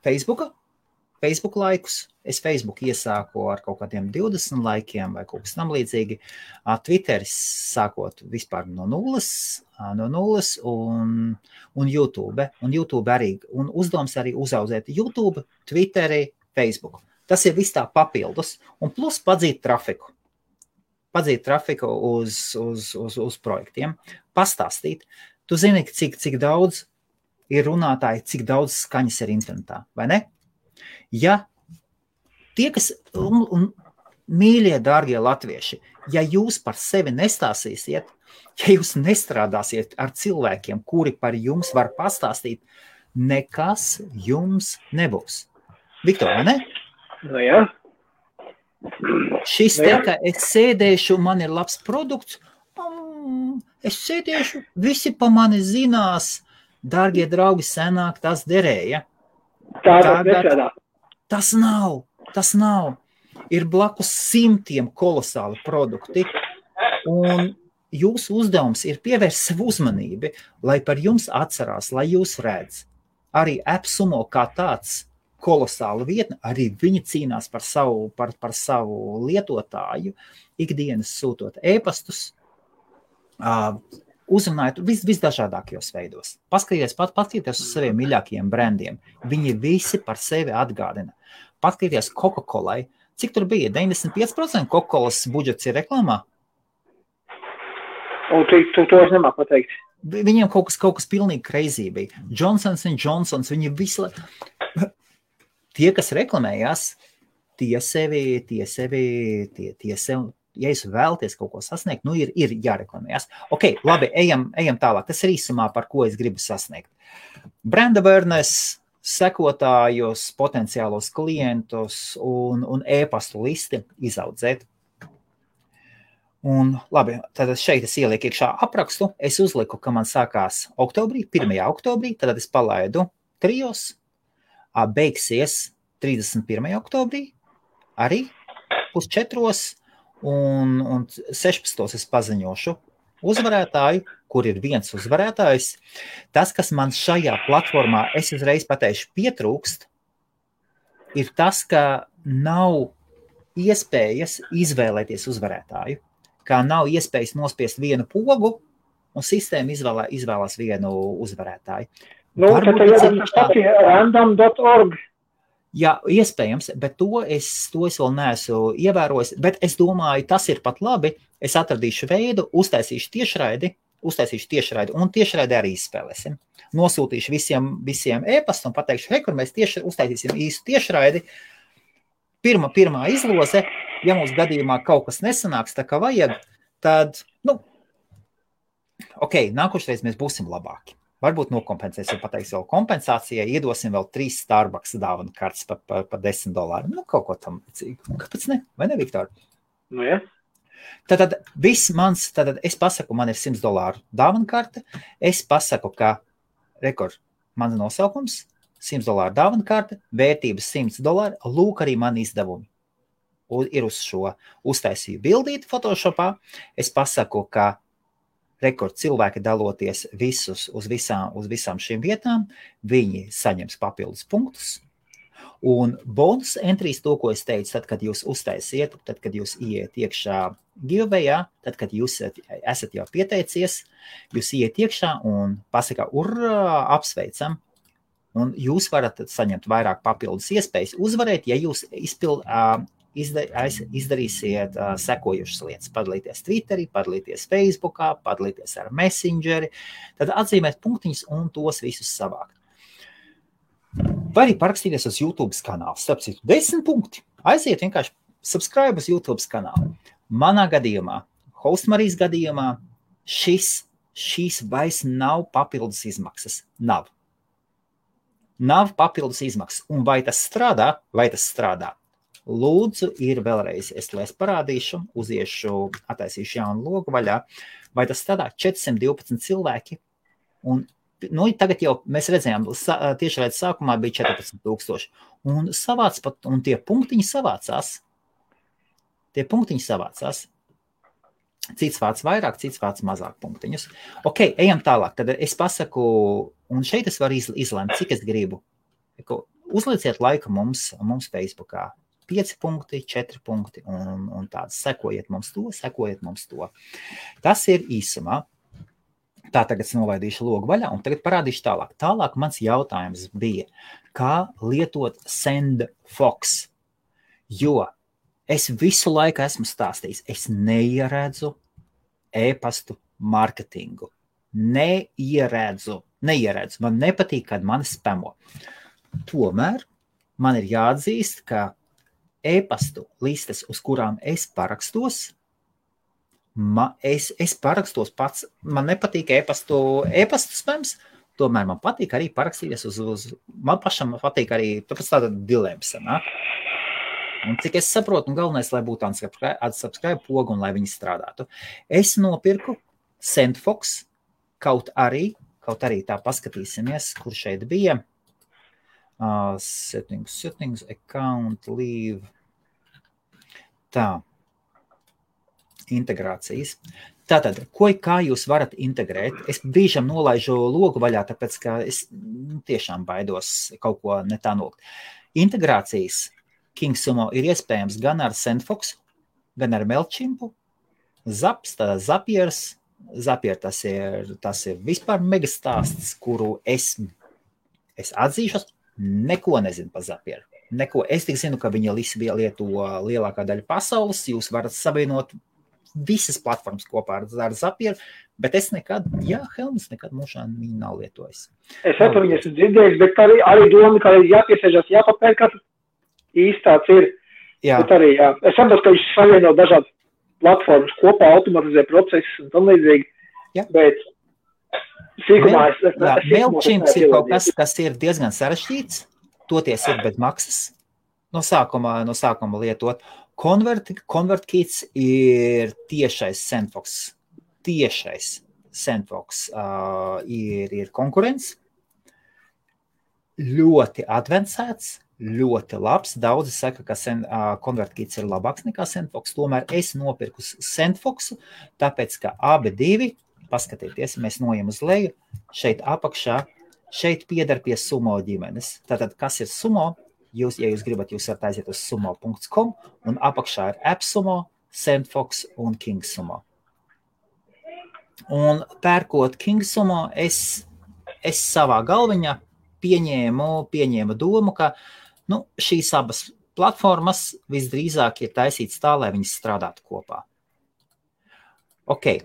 Speaker 1: Facebook laikus. Es Facebook iesāku ar kaut kādiem 20 laikiem vai kaut kas tam līdzīgi. Twitteris sākot vispār no nulles un YouTube. Un YouTube arī, un uzdevums arī uzaudzēt YouTube, Twitteri, Facebook. Tas ir viss tā papildus, un plus padzīt trafiku. Padzīt trafiku uz projektiem, pastāstīt. Tu zini, cik daudz ir runātāji, cik daudz skaņas ir internetā, vai ne? Ja tie, kas, mīļie, dārgie latvieši, ja jūs par sevi nestāstīsiet, ja jūs nestrādāsiet ar cilvēkiem, kuri par jums var pastāstīt, nekas jums nebūs. Viktor, vai ne?
Speaker 2: Nu jā.
Speaker 1: Šis te, ka es sēdēšu, man ir labs produkts, es sēdēšu, visi pa mani zinās, dārgie draugi, senāk tas derēja.
Speaker 2: Tagad
Speaker 1: tas nav. Ir blakus 100 kolosāli produkti, un jūsu uzdevums ir pievērst savu uzmanību, lai par jums atcerās, lai jūs redz. Arī AppSumo kā tāds kolosāla vietne, arī viņi cīnās par savu lietotāju, ikdienas sūtot e-pastus, uzrunājot visdažādākajos veidos. Paskatieties uz saviem mīļākajiem brandiem. Viņi visi par sevi atgādina. Paskatieties Coca-Colai, Cik tur bija? 95% Coca-Colas budžets ir reklāmā?
Speaker 2: Un to es nemāku pateikt.
Speaker 1: Viņiem kaut kas pilnīgi crazy bija. Johnsons & Johnsons, viņi visu... Tie, kas reklamējās, tie sevi, ja jūs vēlaties kaut ko sasniegt, nu ir jāreklamējās. Ok, labi, ejam tālāk. Tas ir īsumā, par ko es gribu sasniegt. Brand awareness, sekotājus, potenciālos klientus un e-pastu listi izaudzēt. Un labi, tad šeit es ielieku iekšā aprakstu. Es uzliku, ka man sākās oktobrī, 1. oktobrī, tad es palaidu 3, beigsies 31. oktobrī, arī 3:30 un 16. es paziņošu uzvarētāju, kur ir viens uzvarētājs. Tas, kas man šajā platformā, es uzreiz pateikšu, pietrūkst, ir tas, ka nav iespējas izvēlēties uzvarētāju, kā nav iespējas nospiest vienu pogu, un sistēma izvēlās vienu uzvarētāju.
Speaker 2: Nu, tad jāatcerās random.org.
Speaker 1: Jā, iespējams, bet to es vēl neesmu ievērojis, bet es domāju, tas ir pat labi. Es atradīšu veidu, uztaisīšu tiešraidi un tiešraidi arī izspēlēsim. Nosūtīšu visiem e-pastu un pateikšu, hei, kur mēs uztaisīsim īstu tiešraidi. Pirmā izloze, ja mums gadījumā kaut kas nesanāks tā kā vajag, tad, nākošreiz mēs būsim labāki. Varbūt nokompensēsim, pateiks vēl kompensācijai, iedosim vēl 3 Starbucks dāvanu kartes par $10. Kaut ko tam līdzīgu. Kāpēc ne? Vai ne, Viktor?
Speaker 2: Nu, ja.
Speaker 1: Tad es pasaku, man ir $100 dāvanu karte. Es pasaku, ka mans nosaukums, $100 dāvanu karte, vērtības $100, lūk arī mani izdevumi. Ir uz šo uztaisīju bildīti Photoshopā. Es pasaku, ka cilvēki daloties visus uz visām šīm vietām, viņi saņems papildus punktus. Un bonus entries, to, ko es teicu, tad, kad jūs uztaisiet, tad, kad jūs iet iekšā giveawayā, tad, kad jūs esat jau pieteicies, jūs iet iekšā un pasaka, urā, apsveicam, un jūs varat saņemt vairāk papildus iespējas uzvarēt, ja jūs izdarīsiet sekojušas lietas, padalīties Twitterī, padalīties Facebookā, padalīties ar Messengeri, tad atzīmēt punktiņus un tos visus savākt. Vai arī parakstīties uz YouTube kanālu. Starp citu, 10 punkti. Aiziet vienkārši subscribe uz YouTube kanālu. Manā gadījumā, Hostmarijas gadījumā, šīs vairs nav papildus izmaksas. Nav papildus izmaksas. Un vai tas strādā? Lūdzu, ir vēlreiz, lai es parādīšu, attaisīšu jaunu logu vaļā, vai tas strādā 412 cilvēki, un tagad jau mēs redzējām, tiešraidi sākumā bija 14,000, un tie punktiņi savācās. Cits vārds vairāk, cits vārds mazāk punktiņus. Ok, ejam tālāk, tad es pasaku, un šeit es varu izlemt, cik es gribu. Uzlieciet laiku mums Facebookā. 5 punkti, 4 punkti un tāds. Sekojiet mums to. Tas ir īsumā. Tā tagad es nolaidīšu logu vaļā un tagad parādīšu tālāk. Tālāk mans jautājums bija, kā lietot SendFox, jo es visu laiku esmu stāstījis, es neieredzu e-pastu marketingu. Neieredzu. Man nepatīk, kad mani spamo. Tomēr man ir jāatzīst, ka e-pastu listes, uz kurām es parakstos, es parakstos pats, man nepatīk e-pastu spams, tomēr man patīk arī parakstīties man pašam patīk arī, tāpēc tāda dilemma sanāk. Un cik es saprotu, un galvenais, lai būtu unsubscribe pogu un lai viņi strādātu. Es nopirku SendFox, kaut arī tā paskatīsimies, kur šeit bija. Settings, account, leave. Tā. Integrācijas. Tātad, kā jūs varat integrēt? Es brīžam nolaižu logu vaļā, tāpēc, ka es tiešām baidos kaut ko ne tā nolikt. Integrācijas KingSumo ir iespējams gan ar SendFox, gan ar Mailchimpu. Zapier, tas ir vispār megastāsts, kuru es atzīšos, neko nezinu par Zapieru. neko. Es tik zinu, ka viņa lieto lielākā daļa pasaules. Jūs varat savienot visas platformas kopā ar Zapieru, bet es nekad, Helmuts nekad mūžā viņu nav lietojis.
Speaker 2: Es par viņu esmu dzirdējis, bet arī doma, ka jāpiesēžas, jāpapērk, īstāds ir. Jā. Bet arī, jā. Es saprotu, ka viņš savieno dažādas platformas kopā, automatizē procesus un tam līdzīgi, bet sīkumā
Speaker 1: MailChimp ir kaut kas ir diezgan sarežģīts, toties ir bez maksas, no sākuma lietot. ConvertKit ir tiešais Sendfox ir konkurents, ļoti advancēts, ļoti labs. Daudzi saka, ka ConvertKit ir labāks nekā Sendfox, tomēr es nopirku Sendfoxu, tāpēc, ka abi divi, paskatieties, mēs nojam uz leju, šeit apakšā, šeit piedar pie Sumo ģimenes. Tātad, kas ir Sumo? Ja jūs gribat, jūs varat aiziet uz sumo.com un apakšā ir AppSumo, Sendfox un KingSumo. Un pērkot KingSumo, es savā galviņā pieņēmu domu, ka šīs abas platformas visdrīzāk ir taisītas tā, lai viņas strādātu kopā. Ok,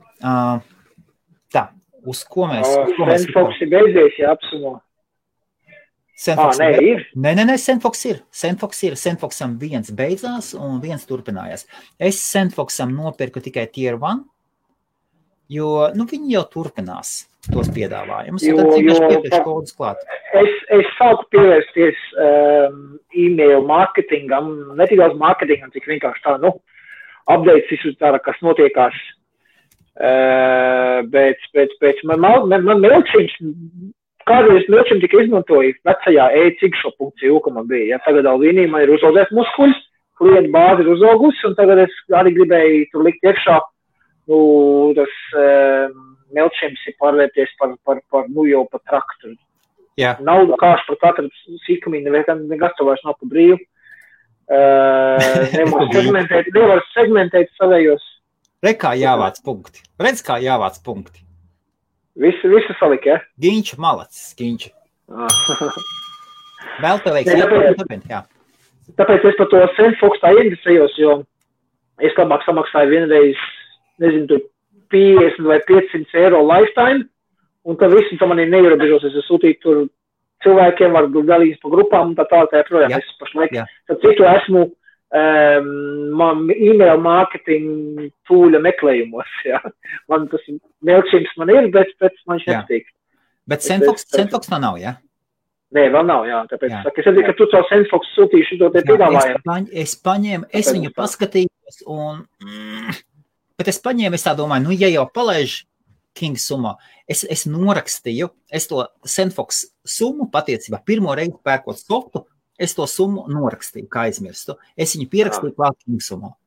Speaker 1: tā, uz ko mēs...
Speaker 2: Sendfox ir beidzies, ja AppSumo.
Speaker 1: Nē, Sendfox ir. Sendfoxam viens beidzās un viens turpinājās. Es Sendfoxam nopirku tikai Tier 1, jo viņi jau turpinās tos piedāvājumus.
Speaker 2: Es sāku pievērsties e-mail marketingam, ne tik daudz marketingam, cik vienkārši tā, updates izsūtāra, kas notiekās. Bet man MailChimp, kādreiz MailChimp tika izmantoja vecajā e-cikšo.eu, ka man bija. Ja, tagad Alvīnī man ir uzaugies muskuļs, klientu bāzi ir uzaugusi, un tagad es arī gribēju tur likt iekšā, tas MailChimp ir pārvērties par jau par traktoru.
Speaker 1: Jā.
Speaker 2: Naudu kāš par katru sīkumīnu, nekas to vairs nav pa brīvu. Nevar segmentēt savējos.
Speaker 1: Redz, kā jāvāc punkti.
Speaker 2: Visu salika, ja?
Speaker 1: Ginča malacis, Ginča. Vēl tev veiks, jā.
Speaker 2: Tāpēc es par to Sendfox tā ieinteresējos, jo es labāk samaksāju vienreiz, nezinu, 50 vai 500 eiro lifetime, un tā visu tā manī neierobežos, es sūtīju tur cilvēkiem, var dalīt pa grupām, un tā projām. Es pašlaik, tad citu esmu e-mail marketing tūļa meklējumos, jā. Man tas MailChimp man ir, bet man viņš nepatīk.
Speaker 1: Bet Sendfox tā nav, jā?
Speaker 2: Nē, vēl nav, jā. Tāpēc, es redzu, ka tu caur Sendfox sūtīšu to te piedāvājumu.
Speaker 1: Es viņu paskatījos, bet es paņēmu, es tā domāju, ja jau palaiž KingSumo, es norakstīju, es to Sendfox summu patiecībā pirmo reizi pērkot softu, es to summu norakstīju, kā aizmirstu. Es viņu pierakstīju klāt KingSumo.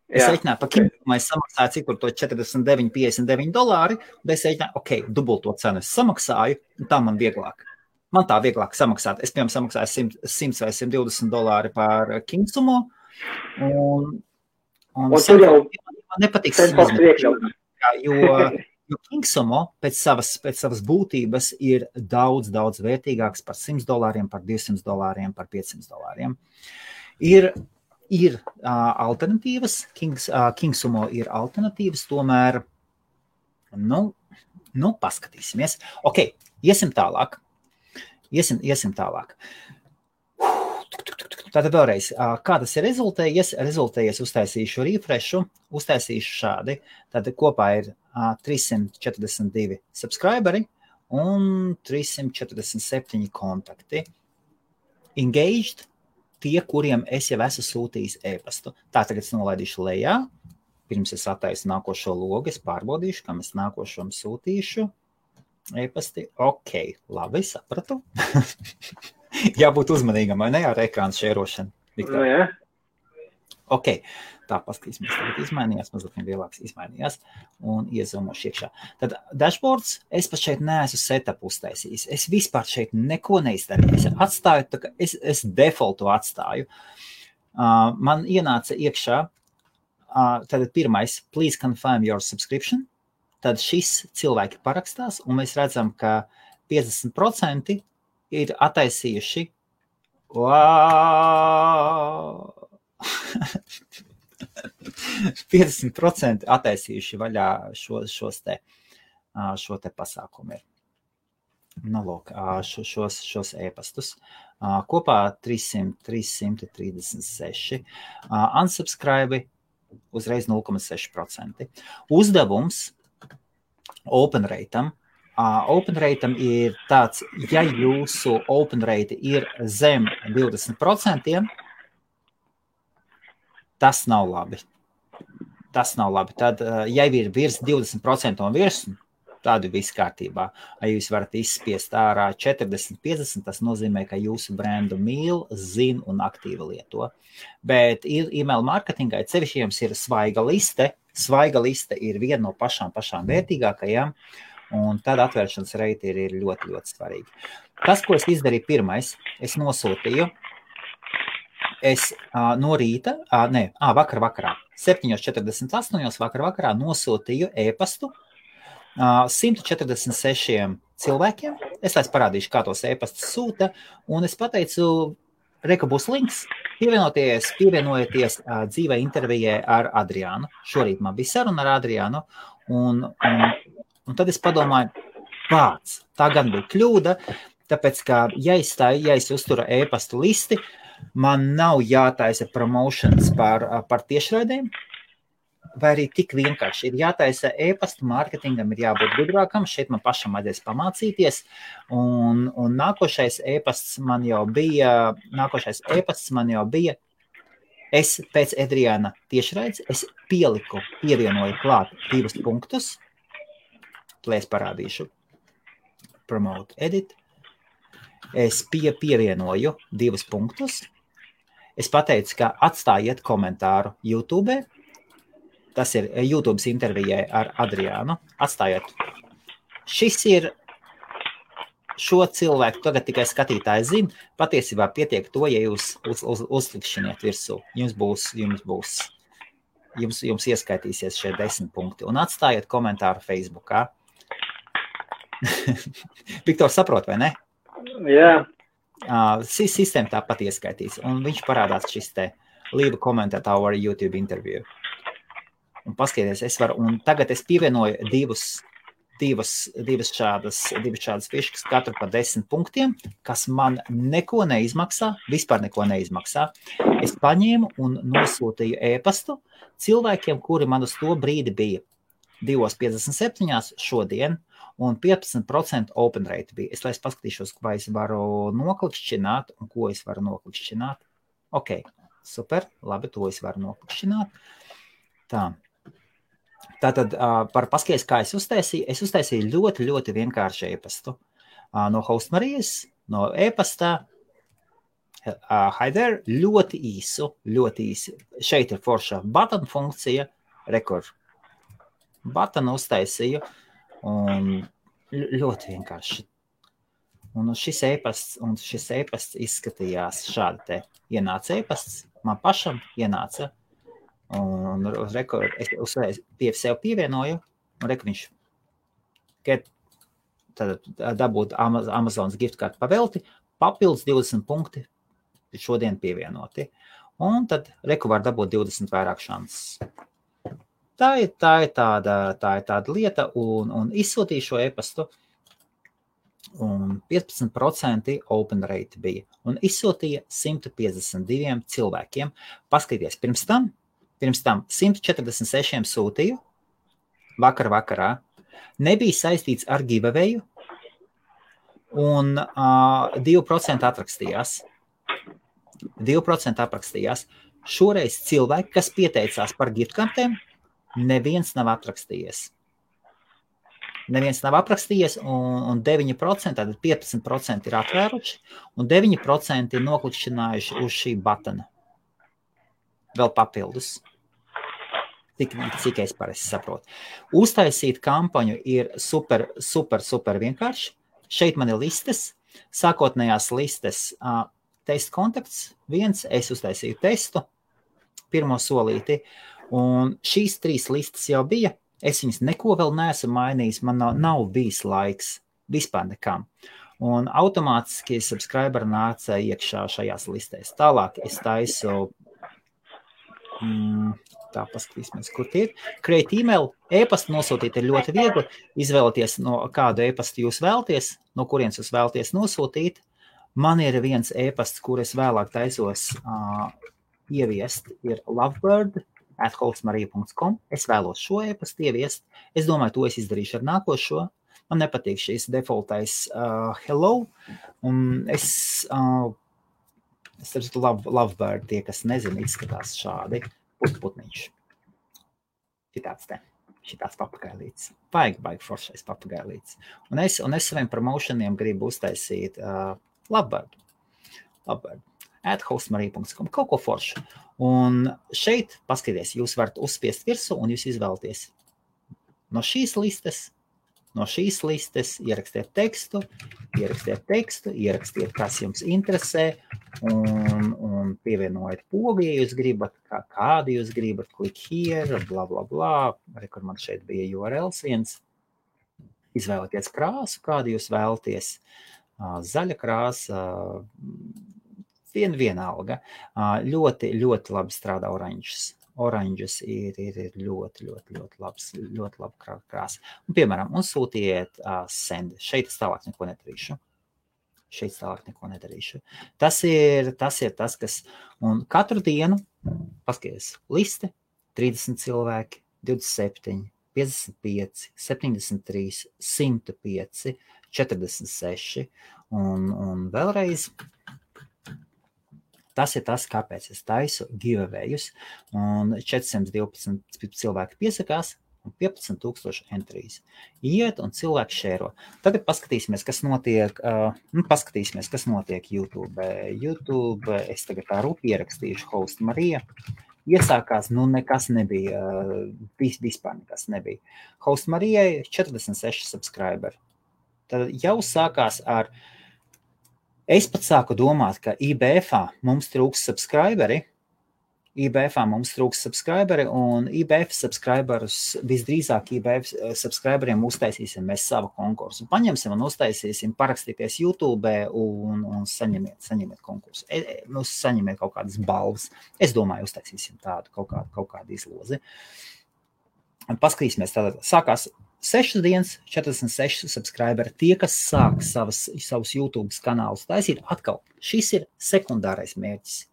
Speaker 1: Es reiķināju par KingSumo, es samaksāju cik tur to $49.59, un es reiķināju, dubulto cenu es samaksāju, un tā man vieglāk. Man tā vieglāk samaksāt. Es, piemēram, samaksāju $100 vai $120 par KingSumo, un man nepatīk jo KingSumo pēc savas būtības ir daudz vērtīgāks par $100, par $200, par $500. Ir alternatīvas, KingSumo ir alternatīvas, tomēr, paskatīsimies. Ok, iesim tālāk. Tātad vēlreiz, kā tas ir rezultējies, uztaisīšu refreshu, uztaisīšu šādi, tad kopā ir 342 subscriberi un 347 kontakti. Engaged, tie, kuriem es jau esmu sūtījis e-pastu. Tā tagad es nolaidīšu lejā, pirms es attaisu nākošo logu, es pārbaudīšu, kam es nākošom sūtīšu e-pasti. Ok, labi, sapratu. Jābūt uzmanīgam, vai ne, ar ekrānu šērošanu?
Speaker 2: Jā.
Speaker 1: Ok, tā paskatīsimies, tagad izmainījās, mazliet lielāks izmainījās un iezomošu iekšā. Tad dashboards, es pat šeit neesmu setup uztaisījis. Es vispār šeit neko neizdarīju. Es atstāju, tā kā es defaultu atstāju. Man ienāca iekšā, tad pirmais, please confirm your subscription. Tad šis cilvēki parakstās, un mēs redzam, ka 50% ir attaisījuši Wow! 50% attaisījuši vaļā šo te pasākumu ir. Nu, lūk, šos e-pastus. Kopā 336. Unsubscribe uzreiz 0,6%. Uzdevums open rate'am. Open rate'am ir tāds, ja jūsu open rate ir zem 20%, tas nav labi. Tad, ja ir virs 20% un virs, tādu viss kārtībā. Ja jūs varat izspiest ārā 40-50, tas nozīmē, ka jūsu brendu mīl, zin un aktīvi lieto. Bet email marketingai cevišķi jums ir svaiga liste. Svaiga liste ir viena no pašām vērtīgākajām, un tad atvēršanas reiti ir ļoti, ļoti svarīgi. Tas, ko es izdarīju pirmais, es nosūtīju, no rīta, vakarā, 7:48 vakarā nosūtīju e-pastu 146 cilvēkiem. Es parādīšu, kā tos e-pastus sūta, un es pateicu, reka būs links, pievienojieties dzīvē intervijai ar Adriānu. Šorīt man bija saruna ar Adriānu, un tad es padomāju, tā gan bija kļūda, tāpēc, ka ja es uzturu e-pastu listi, man nav jātaisa promotions par tiešraidēm, vai arī tik vienkārši ir jātaisa e-pasta mārketingam, ir jābūt gudrākam, šeit man pašam vajadzēs pamācīties, un nākošais e-pasts man jau bija, es pēc Adriāna tiešraides, es pievienoju klāt 2 punktus, lai es parādīšu, promote, edit, es pievienoju 2 punktus, es pateicu, ka atstājiet komentāru YouTube, tas ir YouTube intervijai ar Adriānu. Atstājiet. Šis ir šo cilvēku, tagad tikai skatītāji zina, patiesībā pietiek to, ja jūs uzklikšķiniet virsū. Jums ieskaitīsies šie 10 punkti. Un atstājiet komentāru Facebookā. Viktor, saprot, vai ne?
Speaker 2: Jā.
Speaker 1: Sistēma tāpat ieskaitīs. Un viņš parādās šis te leave a comment at our YouTube interview. Un paskatieties, un tagad es pievienoju divas šādas fiškas, katru par 10 punktiem, kas man neko neizmaksā, vispār neko neizmaksā. Es paņēmu un nosūtīju e-pastu cilvēkiem, kuri man uz to brīdi bija 2:57 šodien, un 15% open rate bija. Es paskatīšos, vai es varu noklikšķināt, un ko es varu noklikšķināt. Ok, super, labi, to es varu noklikšķināt. Tā. Tātad par paskaties, kā es uztaisīju ļoti, ļoti vienkārši e-pastu. No Hostmarijas, no e-pastā, hi there, ļoti īsi. Šeit ir forša button funkcija, rekord. Button uztaisīju, un ļoti vienkārši. Un šis e-pasts izskatījās šādi te. Ienāca e-pasts, man pašam ienāca. Un es sev pievienoju, un viņš dabūt Amazonas gift card pavelti, papildus 20 punkti šodien pievienoti. Un tad var dabūt 20 vairāk šansas. Tā ir tāda lieta, un izsūtīju šo e-pastu, un 15% open rate bija. Un izsūtīja 152 cilvēkiem. Paskaties, pirms tam 146 sūtīju vakarā. Nebija saistīts ar giveawayu, un 2% atrakstījās. 2% aprakstījās. Šoreiz cilvēki, kas pieteicās par giftkartēm, neviens nav atrakstījies. Un 9%, tātad 15% ir atvēruši, un 9% ir noklikšķinājuši uz šī batona. Vēl papildus. Cik es parasti saprotu. Uztaisīt kampaņu ir super vienkārši. Šeit man ir listes, sākotnējās listes, test kontakts, es uztaisīju testu, pirmo solīti, un šīs 3 listas jau bija. Es viņas neko vēl neesmu mainījis, man nav bijis laiks vispār nekam. un automātiski subscriberi nāca iekšā šajās listēs. Tālāk es taisu, tā paskatīsimies, kur tie ir. Create email, e-pastu nosūtīt ir ļoti viegli, izvēlēties, no kādu e-pastu jūs vēlties, no kurienes jūs vēlties nosūtīt. Man ir viens e-pasts, kur es vēlāk taisos ieviest, ir lovebird@hostmarija.com. Es vēlos šo e-pastu ieviest. Es domāju, to es izdarīšu ar nākošo. Man nepatīk šīs defaultais hello. Un es Lovebird, tie, kas nezina, izskatās šādi. Putniņš. Šitāds papagailīts. Baigi foršais papagailīts. Un es saviem promotioniem gribu uztaisīt Lovebird. @hostmarija.com. Kaut ko foršu. Un šeit, paskaties, jūs varat uzspiest virsū un jūs izvēlaties no šīs listes, ierakstiet tekstu, ierakstiet, kas jums interesē, un pievienojiet pogu, ja jūs gribat, kādu jūs gribat, click here, bla, bla, bla, kur man šeit bija URLs viens, izvēlieties krāsu, kādu jūs vēlaties, zaļa krāsa, vienalga, ļoti labi strādā oranžas ir ļoti laba krāsa. Un, piemēram, un sūtiet send. Šeit es tālāk neko nedarīšu. Tas ir tas, kas, un katru dienu, paskaties, liste, 30 cilvēki, 27, 55, 73, 105, 46, un vēlreiz, tas ir tas, kāpēc es taisu giveawayus, un 412 cilvēki piesakās, un 15,000 entries. Iet un cilvēki šēro. Tagad paskatīsimies, kas notiek YouTube. Es tagad tā rūpi ierakstīšu Host Marija. Iesākās, nekas nebija, vispār nekas nebija. Host Marijai 46 subscriberi. Tad jau sākās ar Es pat sāku domāt, ka IBF-ā mums trūks subscriberi, un IBF subscriberus, visdrīzāk IBF subscriberiem uztaisīsim mēs savu konkursu. Paņemsim un uztaisīsim, parakstīties YouTube un saņemiet konkursu. Saņemiet kaut kādas balvas. Es domāju, uztaisīsim tādu kaut kādu izlozi. Paskatīsimies tātad. Sākās 6 dienas, 46 subscriberi. Tie, kas sāk savus YouTube kanālus taisīt, atkal šis ir sekundārais mērķis.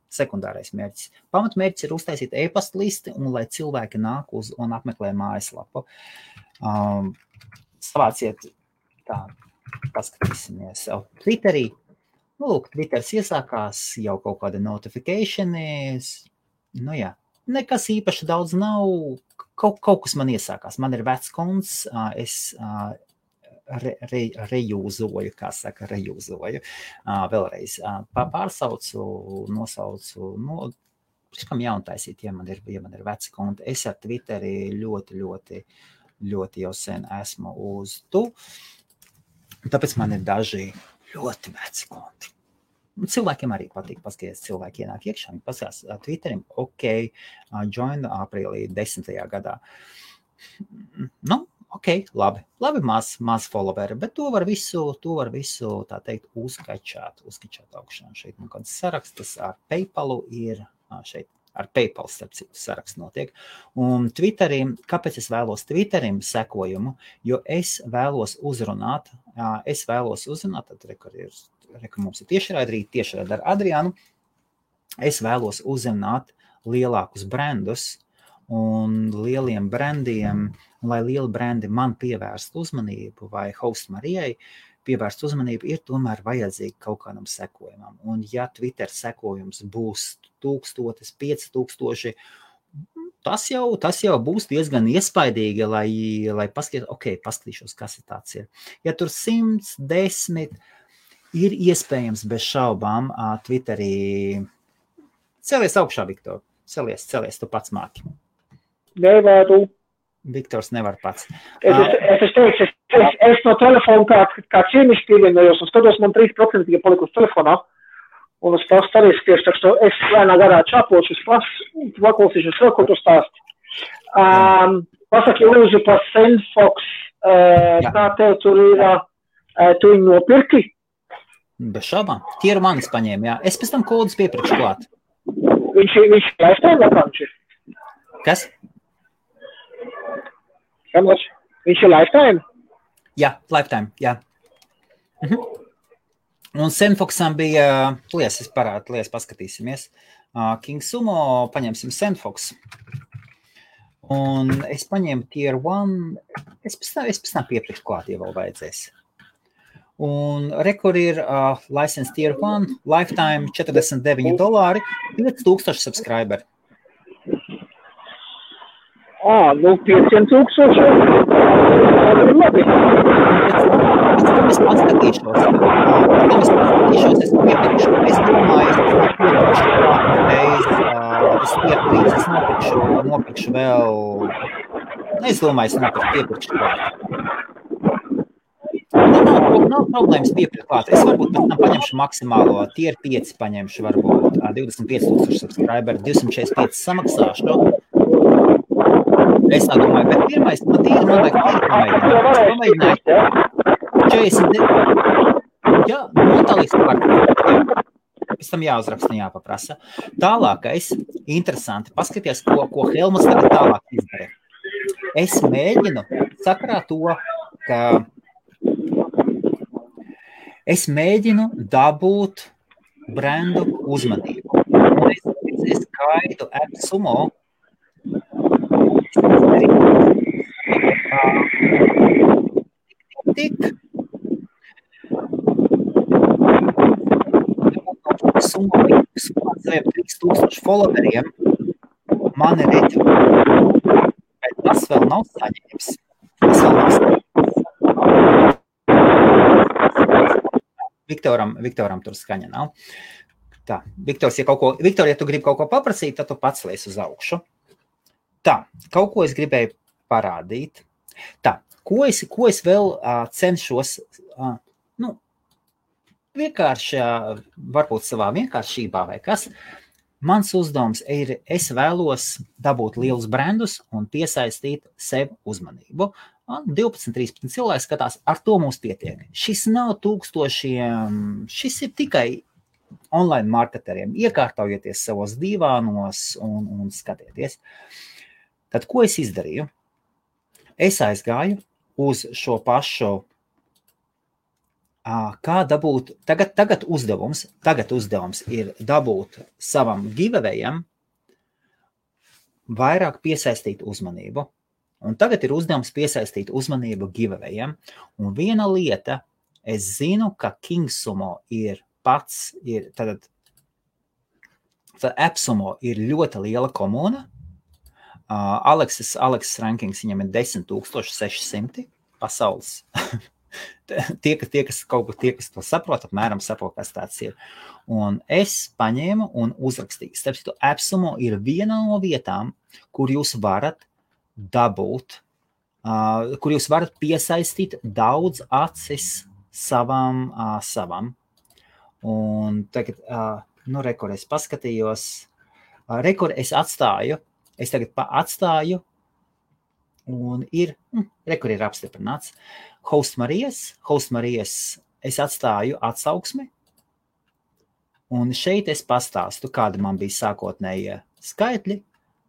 Speaker 1: Pamatmērķis ir uztaisīt e-pasta listi, un lai cilvēki nāk uz un apmeklē mājaslapu. Savāciet tā, paskatīsimies Twitterī. Twitters iesākās jau kaut kāda notifications. Jā. Nekas īpaši daudz nav, kaut kas man iesākās. Man ir vecs konts, es rejūzoju, vēlreiz. Pārsaucu, nosaucu, kam jauntaisīt, ja man ir veci konti. Es ar Twitteri ļoti jau sen esmu uz tu, tāpēc man ir daži ļoti veci konti. Cilvēkiem arī patīk paskaties, cilvēki ienāk iekšā, viņi paskatās Twitterim, join aprīlī 10. gadā. Labi, maz followeri, bet to var visu, tā teikt, uzkačāt augšā. Šeit man kāds sarakstas ar PayPalu ir, šeit ar PayPal starp citu saraksts notiek. Un Twitterim, kāpēc es vēlos Twitterim sekojumu, jo es vēlos uzrunāt, tad mums ir tiešraidi ar Adriānu, es vēlos uzrunāt lielākus brandus un lieliem brandiem, lai lieli brandi man pievērst uzmanību vai Host Marijai pievērst uzmanību, ir tomēr vajadzīgi kaut kādam sekojumam. Un ja Twitter sekojums būs 1000, 5000, tas jau būs diezgan iespaidīgi, lai paskatīšos, kas ir tāds ir. Ja tur 110, ir iespējams bez šaubām Twitterī. Celies augšā, Viktor. Celies, tu pats māki.
Speaker 2: Nevaru.
Speaker 1: Viktors nevar pats.
Speaker 2: Es no telefona kā ciemišķi pievienojos un skatos, man 3% ja palikusi telefonā. Un es pastu arī spiešu, tā ka es lēnā garā čapošu, es paklausīšos vēl, ko tu stāsti. Pasaki lūdzu par Sendfox, kā tev tur ir, tu viņu nopirki?
Speaker 1: Bez šaubām. Tier 1 paņēma, jā. Es pēc tam kodus piepirkšu klāt.
Speaker 2: Viņš lifetime akauns ir?
Speaker 1: Kas?
Speaker 2: Viņš ir lifetime?
Speaker 1: Jā, lifetime, jā. Un Senfoxam bija, es parādu, paskatīsimies. King Sumo, paņemsim Senfox. Un es paņēmu Tier 1, es pēc tam piepirkšu klāt, ja vēl vajadzēs. Un rekord ir license Tier 1, lifetime $49, 5000 subscriberi.
Speaker 2: Nu 500,000. Labi.
Speaker 1: Es paskatīšos. Es piepirkšu. Es domāju, es nopirkšu vēl. Es domāju, es piepirkšu klāt. Nav problēmas piepirkt klāt. Es varbūt pēc tam paņemšu maksimālo Tier 5 paņemšu, varbūt 25,000 subscriberi, 245 samaksāšu. Es tā domāju, bet pirmais, man vajag pamēģināt. 49. Jā, notālīgs par. Pēc tam jāuzraksta, jāpaprasa. Tālākais, interesanti, paskaties, ko Helmuts tagad tālāk izdara. Es mēģinu sakarā to, ka es mēģinu dabūt brendu uzmanību. Un es skaitu AppSumo. Tik summa saviem 3000 followeriem mani redz, bet tas vēl nav saņēmis. Viktoram tur skaņa nav. Tā, Viktors, ja tu gribi kaut ko paprasīt, tad tu pats lies uz augšu. Tā, kaut ko es gribēju parādīt. Tā, ko es vēl cenšos, vienkārši, varbūt savā vienkāršībā vai kas, mans uzdevums ir, es vēlos dabūt lielus brandus un piesaistīt sev uzmanību. 12-13 cilvēki skatās, ar to mums pietiek. Šis nav tūkstošiem, šis ir tikai online marketeriem. Iekārtaujieties savos divānos un skatieties. Tad, ko es izdarīju? Es aizgāju uz šo pašu, kā dabūt, tagad uzdevums ir dabūt savam giveawayam vairāk piesaistīt uzmanību. Un tagad ir uzdevums piesaistīt uzmanību giveawayam. Un viena lieta, es zinu, ka King Sumo tad AppSumo ir ļoti liela komuna. Aleksis rankings viņam ir 10,600 pasaules. tie, kas to saprot, apmēram saprot, kas tāds ir. Un es paņēmu un uzrakstīju. Starp AppSumo ir viena no vietām, kur jūs varat dabūt, kur jūs varat piesaistīt daudz acis savam. Un tagad, rekord es paskatījos, rekord es atstāju, es tagad atstāju, un rekord ir apstiprināts. Host Marijas, es atstāju atsauksmi, un šeit es pastāstu, kāda man bija sākotnējie skaitļi,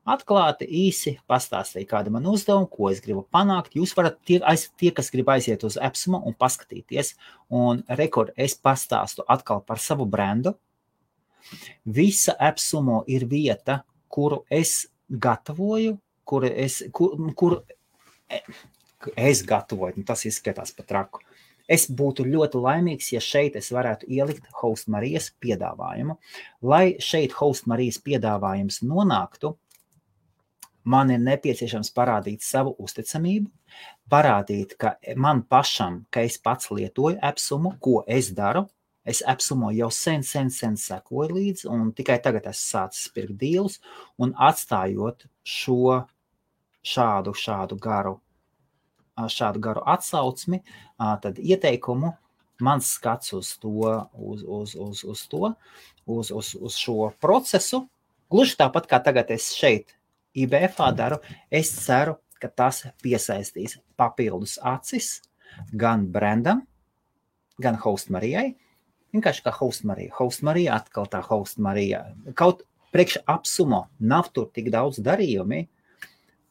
Speaker 1: atklāti, īsi pastāstīju, kāda man uzdevuma, ko es gribu panākt. Jūs varat, tie kas grib aiziet uz AppSumo un paskatīties, un rekord es pastāstu atkal par savu brendu. Visa AppSumo ir vieta, kuru es gatavoju, kuru es gatavoju, tas izskatās pat traku. Es būtu ļoti laimīgs, ja šeit es varētu ielikt Host Marijas piedāvājumu. Lai šeit Host Marijas piedāvājums nonāktu, man ir nepieciešams parādīt savu uzticamību, parādīt, ka man pašam, ka es pats lietoju AppSumo, ko es daru. Es AppSumo jau sen sekoju līdzi, un tikai tagad esmu sācis pirkt dīlus, un atstājot šādu garu atsaucmi, tad ieteikumu, mans skats uz šo procesu, gluži tāpat kā tagad es šeit IBF-ā daru, es ceru, ka tas piesaistīs papildus acis gan brandam, gan Host Marijai, Vienkārši kā Host Marija. Host Marija atkal tā Host Marija. Kaut priekš Apsumo nav tur tik daudz darījumi,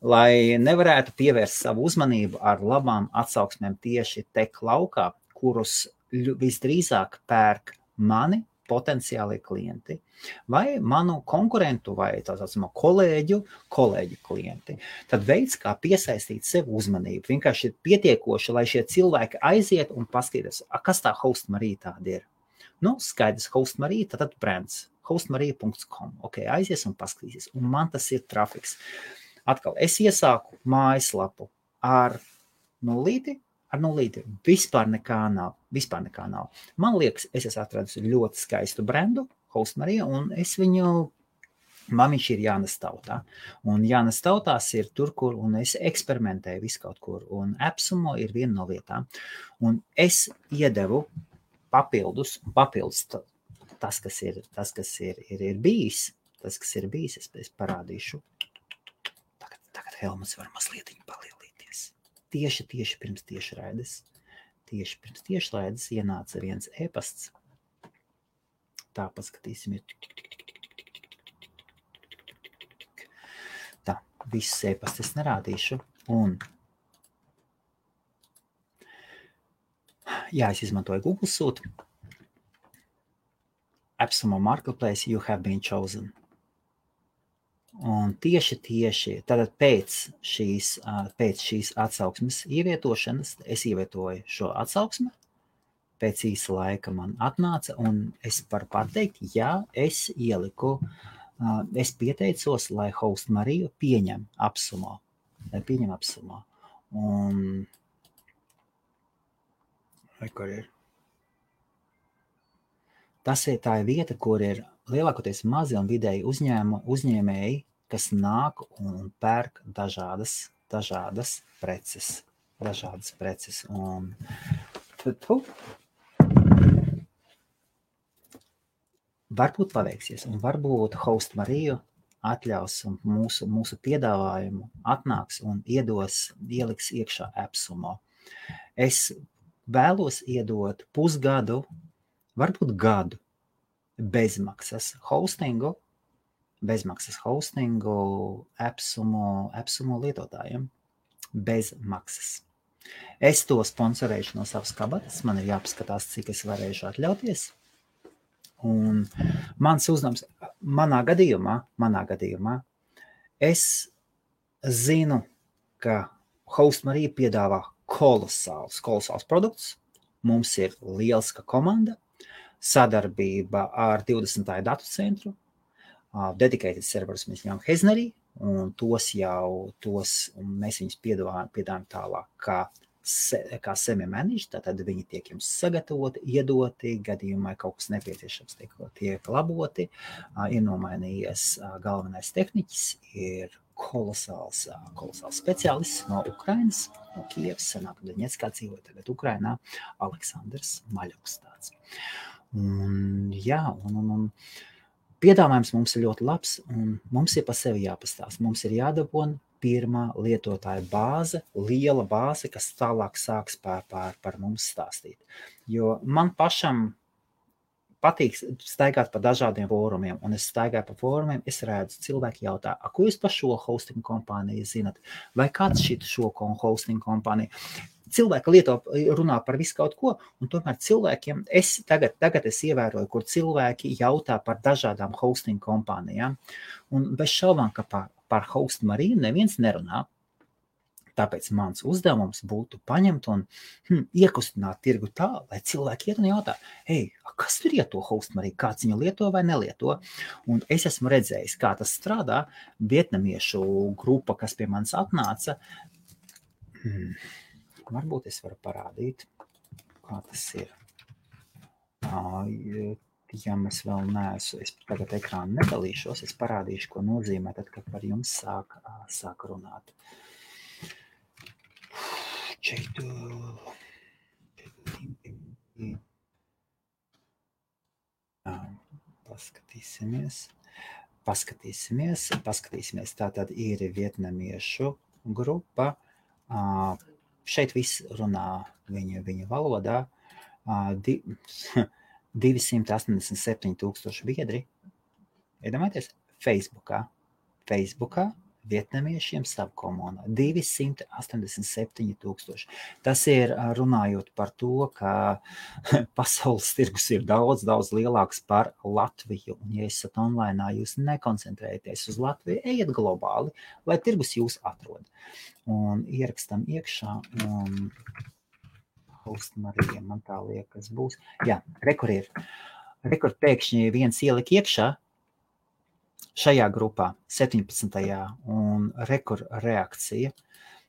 Speaker 1: lai nevarētu pievērst savu uzmanību ar labām atsauksmēm tieši tech laukā, kurus visdrīzāk pērk mani potenciālie klienti vai manu konkurentu vai tā saucamo kolēģu klienti. Tad veids, kā piesaistīt sev uzmanību, vienkārši ir pietiekoši, lai šie cilvēki aiziet un paskatīties, kas tā Host Marija tāda ir. Nu, skaidrs, Host Marija, tad brands, hostmarija.com. Ok, aizies un paskatīsies. Un man tas ir trafiks. Atkal, es iesāku mājaslapu ar nulīti, vispār nekā nav. Man liekas, es esmu atradis ļoti skaistu brandu, Host Marija, un man viņš ir jānes tautā. Un jānes tautās ir tur, kur, un es eksperimentēju visu kaut kur, un Apsumo ir viena no vietām. Un es iedevu papildus tas, kas ir bijis, es parādīšu. Tagad Helmuts var mazliet palielīties. Tieši pirms tiešraides ienāca viens e-pasts. Tā paskatīsim. Tā, visus e-pastus es nerādīšu. Un es izmantoju Google Suite. Apsumo Marketplace, you have been chosen. Un tieši tātad pēc šīs atsauksmes ievietošanas es ievietoju šo atsauksmi, pēc īsa laika man atnāca, un es varu pateikt, es ieliku, es pieteicos, lai Host Mariju pieņem Apsumo. Un kur ir? Tā ir vieta, kur ir lielākoties mazi un vidēji uzņēmēji, kas nāk un pērk dažādas preces. Un varbūt paveiksies, un varbūt Host Mariju atļaus un mūsu piedāvājumu atnāks un ieliks iekšā Apsumo. Es vēlos iedot pusgadu, varbūt gadu, bezmaksas hostingu Apsumo lietotājiem. Bez maksas. Es to sponsorēšu no savas kabatas, man ir jāpaskatās, cik es varēšu atļauties. Un mans uzdevums, manā gadījumā, es zinu, ka Host Marija piedāvā kolosāls produkts. Mums ir lieliska komanda, sadarbība ar 20. datu centru, dedicated serverus mēs ņemam Heznerī, un mēs viņus piedāvājam tālāk kā semi-managed, tātad viņi tiek jums sagatavoti, iedoti, gadījumā kaut kas nepieciešams tiek laboti, ir nomainījies galvenais tehniķis, ir kolosāls speciālists no Ukrainas, no Kievas, senāk Doņetskā dzīvoja, tagad Ukrainā, Aleksandrs Maļuks tāds. Un piedāvājums mums ir ļoti labs, un mums ir pa sevi jāpastāst. Mums ir jādabona pirmā lietotāja bāze, liela bāze, kas tālāk sāks par mums stāstīt. Jo man pašam patīk staigāt pa dažādiem fórumiem, un es staigāju pa fórumiem, es redzu, cilvēki jautā, ko jūs par šo hosting kompāniju zinat? Vai kāds šo hosting kompāniju? Cilvēki runā par visu kaut ko, un tomēr cilvēkiem, tagad es ievēroju, kur cilvēki jautā par dažādām hosting kompānijām, un bez šaubām, ka par Host Mariju neviens nerunā. Tāpēc mans uzdevums būtu paņemt un iekustināt tirgu tā, lai cilvēki iet un jautā, kas tur ir to Host Mariju, kāds viņu lieto vai nelieto? Un es esmu redzējis, kā tas strādā, vietnamiešu grupa, kas pie manis atnāca. Varbūt es varu parādīt, kā tas ir. Ja mēs vēl neesmu, es tagad ekrānu nedalīšos, es parādīšu, ko nozīmē, tad, kad par jums sāk runāt. Paskatīsimies. Tātad ir vietnamiešu grupa. Šeit viss runā viņu valodā. 287,000 biedri. Iedomājieties, Facebookā vietnamiešiem savu komunu. 287,000. Tas ir runājot par to, ka pasaules tirgus ir daudz lielāks par Latviju. Un, ja esat online, jūs nekoncentrējaties uz Latviju, ejiet globāli, lai tirgus jūs atrod. Un ierakstam iekšā un Hostmarija, man tā liekas būs. Jā, rekur pēkšņi viens ielika iekšā šajā grupā 17. un rekur reakcija.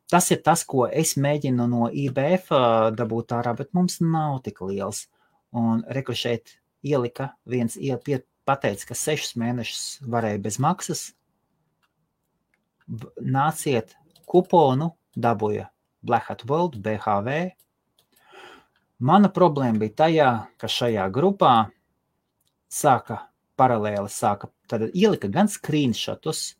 Speaker 1: Tas ir tas, ko es mēģinu no IBF dabūt ārā, bet mums nav tik liels. Un rekur šeit ielika viens pateica, ka 6 mēnešus varēja bez maksas. Nāciet kuponu, dabūja Black Hat World, BHV. Mana problēma bija tajā, ka šajā grupā paralēli tad ielika gan screenshotus,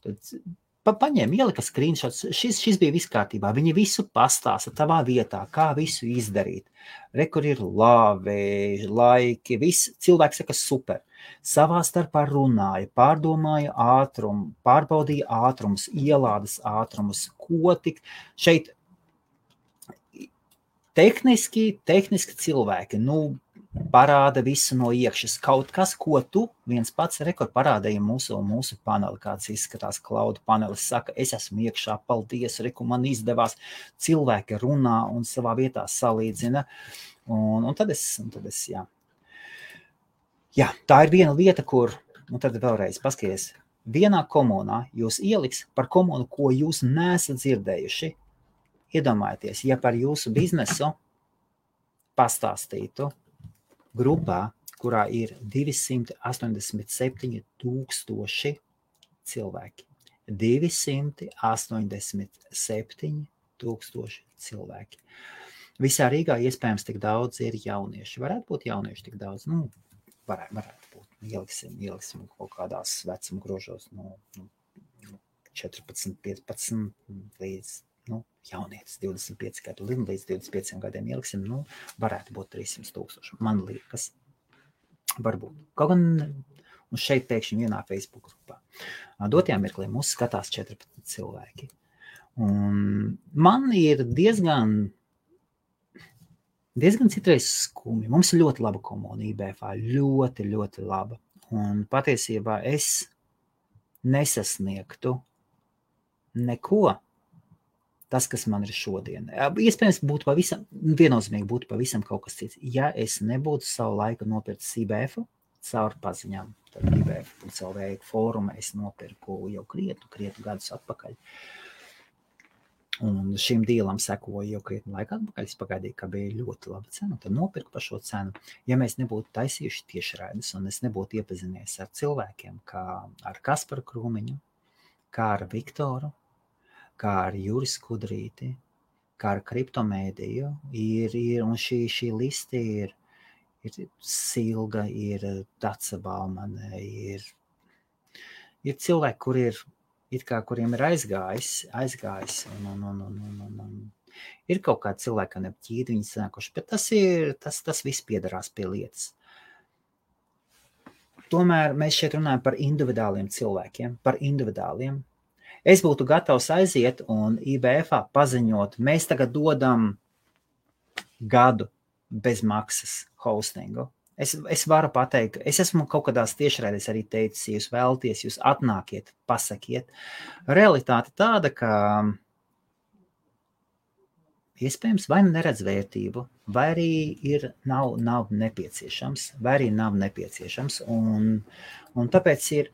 Speaker 1: ielika screenshotus, šis bija viss kārtībā, viņi visu pastāsta tavā vietā, kā visu izdarīt. Rekur ir labi, laiki, viss cilvēks saka super. Savā starpā runāja, pārdomāja ātrumu, pārbaudīja ātrumus, ielādes ātrumus, ko tik šeit tehniski cilvēki, parāda visu no iekšas. Kaut kas, ko tu viens pats rekur parādīja mūsu paneli, kāds izskatās cloud panelis, saka, es esmu iekšā, paldies, reku, man izdevās. Cilvēki runā un savā vietā salīdzina. Un tad es, jā. Jā, tā ir viena lieta, kur, un tad vēlreiz paskaties, vienā komunā jūs ieliks par komunu, ko jūs neesat dzirdējuši. Iedomājieties, ja par jūsu biznesu pastāstītu grupā, kurā ir 287,000 cilvēki. 287,000 cilvēki. Visā Rīgā iespējams tik daudz ir jaunieši. Varētu būt jaunieši tik daudz? Varētu būt. Ieliksim kaut kādās vecuma grožos no 14, 15 līdz jaunietis 25 gadu, līdz 25 gadiem ieliksim, varētu būt 300,000. Man liekas, varbūt. Kaut gan šeit pēkšņi vienā Facebook grupā. Dotajā mirklī mūs skatās 14 cilvēki. Un man ir diezgan citreiz skumi. Mums ir ļoti laba komuna IBF, ļoti, ļoti laba. Un patiesībā es nesasniegtu neko. Tas, kas man ir šodien. Iespējams, viennozīmīgi būtu pavisam kaut kas cits. Ja es nebūtu savu laiku nopircis IBF caur paziņām, tad IBF.lv fóruma es nopirku jau krietnu gadus atpakaļ. Un šim dīlam sekoju jau krietnu laiku atpakaļ. Es pagaidīju, ka bija ļoti laba cena, tad nopirku par šo cenu. Ja mēs nebūtu taisījuši tiešraides un es nebūtu iepazinies ar cilvēkiem, kā ar Kasparu Krūmiņu, kā ar Viktoru, kā ar Juris Kudrīti, kā ar kriptomēdiju, un šī liste ir Silga, ir Daca Baumane, ir cilvēki, kuriem ir aizgājis, un ir kaut kādi cilvēki, kā neapķīdi viņi sanākuši, bet tas viss piedarās pie lietas. Tomēr mēs šeit runājam par individuāliem cilvēkiem, par individuāliem. Es būtu gatavs aiziet un IBF-ā paziņot, mēs tagad dodam gadu bez maksas hostingu. Es varu pateikt, es esmu kaut kādās tiešraidēs arī teicis, ja jūs vēlaties, jūs atnākiet, pasakiet. Realitāte tāda, ka iespējams vai neredz vērtību, vai arī nav nepieciešams, un tāpēc ir,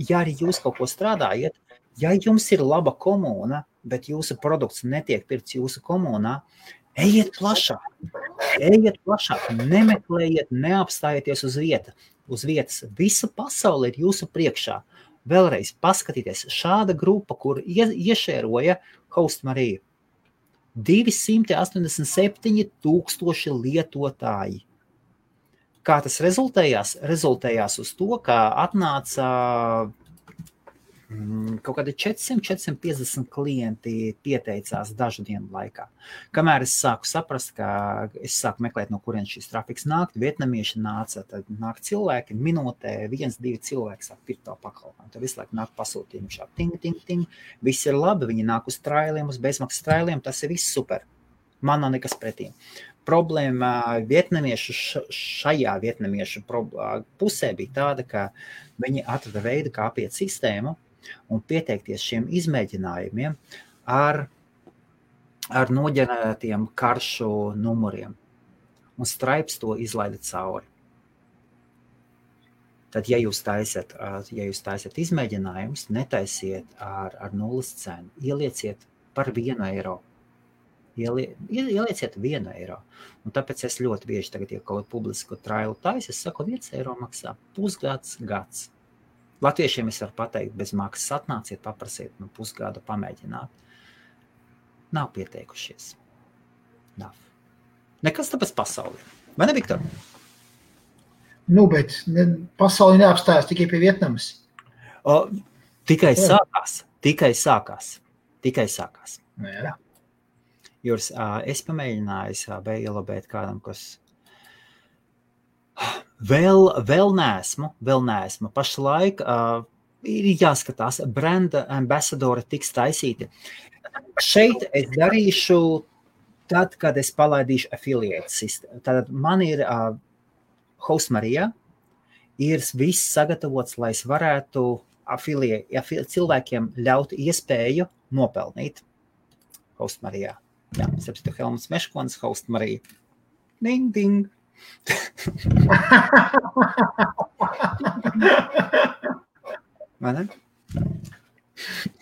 Speaker 1: ja arī jūs kaut ko strādājat, ja jums ir laba komūna, bet jūsu produkts netiek pirkts jūsu komūnā, ejiet plašāk, nemeklējiet, neapstājieties uz vietas. Visa pasaule ir jūsu priekšā. Vēlreiz paskatieties, šāda grupa, kur iešēroja Hostmarija. 287,000 lietotāji. Kā tas rezultējās? Rezultējās uz to, ka atnāca kaut kādi 400-450 klienti pieteicās dažu dienu laikā. Kamēr es sāku saprast, ka es sāku meklēt, no kurien šis trafiks nāk, vietnamieši nāca, tad nāk cilvēki, minūtē 1-2 cilvēki sāk pirkt to pakalpojumu. Tad visu laiku nāk pasūtījumi šā ting. Viss ir labi, viņi nāk uz trailiem, uz bezmaksas trailiem, tas ir viss super. Man nav nekas pretī. Problēma šajā vietnamiešu pusē bija tāda, ka viņi atrada veidu, kā apiet sistēmu un pieteikties šiem izmēģinājumiem ar noģenerētiem karšu numuriem. Un Stripes to izlaida cauri. Tad, ja jūs taisiet izmēģinājumus, netaisiet ar nulles cenu, ielieciet par 1 eiro. Ielieciet 1 eiro. Un tāpēc es ļoti bieži tagad, ja kaut publisku trailu taisu, es saku, 1 eiro maksā pusgads, gads. Latviešiem es varu pateikt, bez maksas atnāciet, paprasiet pusgadu pamēģināt. Nav pieteikušies. Nav. Nekas tāpēc pasaulē. Vai ne, Viktor?
Speaker 3: Bet pasauli neapstājas tikai pie Vietnamas.
Speaker 1: Tikai sākās. Jā. Jūras, es pamēģināju ielabēt kādam, kas vēl neesmu. Pašlaik ir jāskatās, branda ambasadori tiks taisīti. Šeit es darīšu tad, kad es palaidīšu affiliate sistēmu. Tātad man ir Hostmarijā, ir viss sagatavots, lai es varētu cilvēkiem ļaut iespēju nopelnīt Hostmarijā. Jā, sapstu Helmuts Meškonis, Hostmarija. Ding, ding. Vai ne?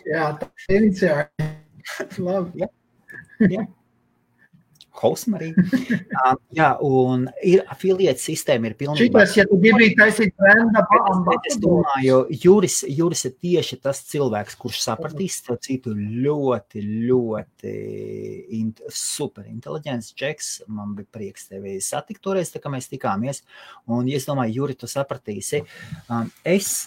Speaker 3: Jā, tā ir iniciāri. Labi.
Speaker 1: Jā. Hostmarija. Jā, un ir affiliate sistēma ir pilnībā.
Speaker 3: Šitas, ja tu gribi taisīt brenda
Speaker 1: Es domāju, Juris ir tieši tas cilvēks, kurš sapratīs, citu ļoti super inteliģents džeks. Man bija prieks tevi satikt toreiz, tā kā mēs tikāmies. Un es domāju, Juri, tu sapratīsi. Es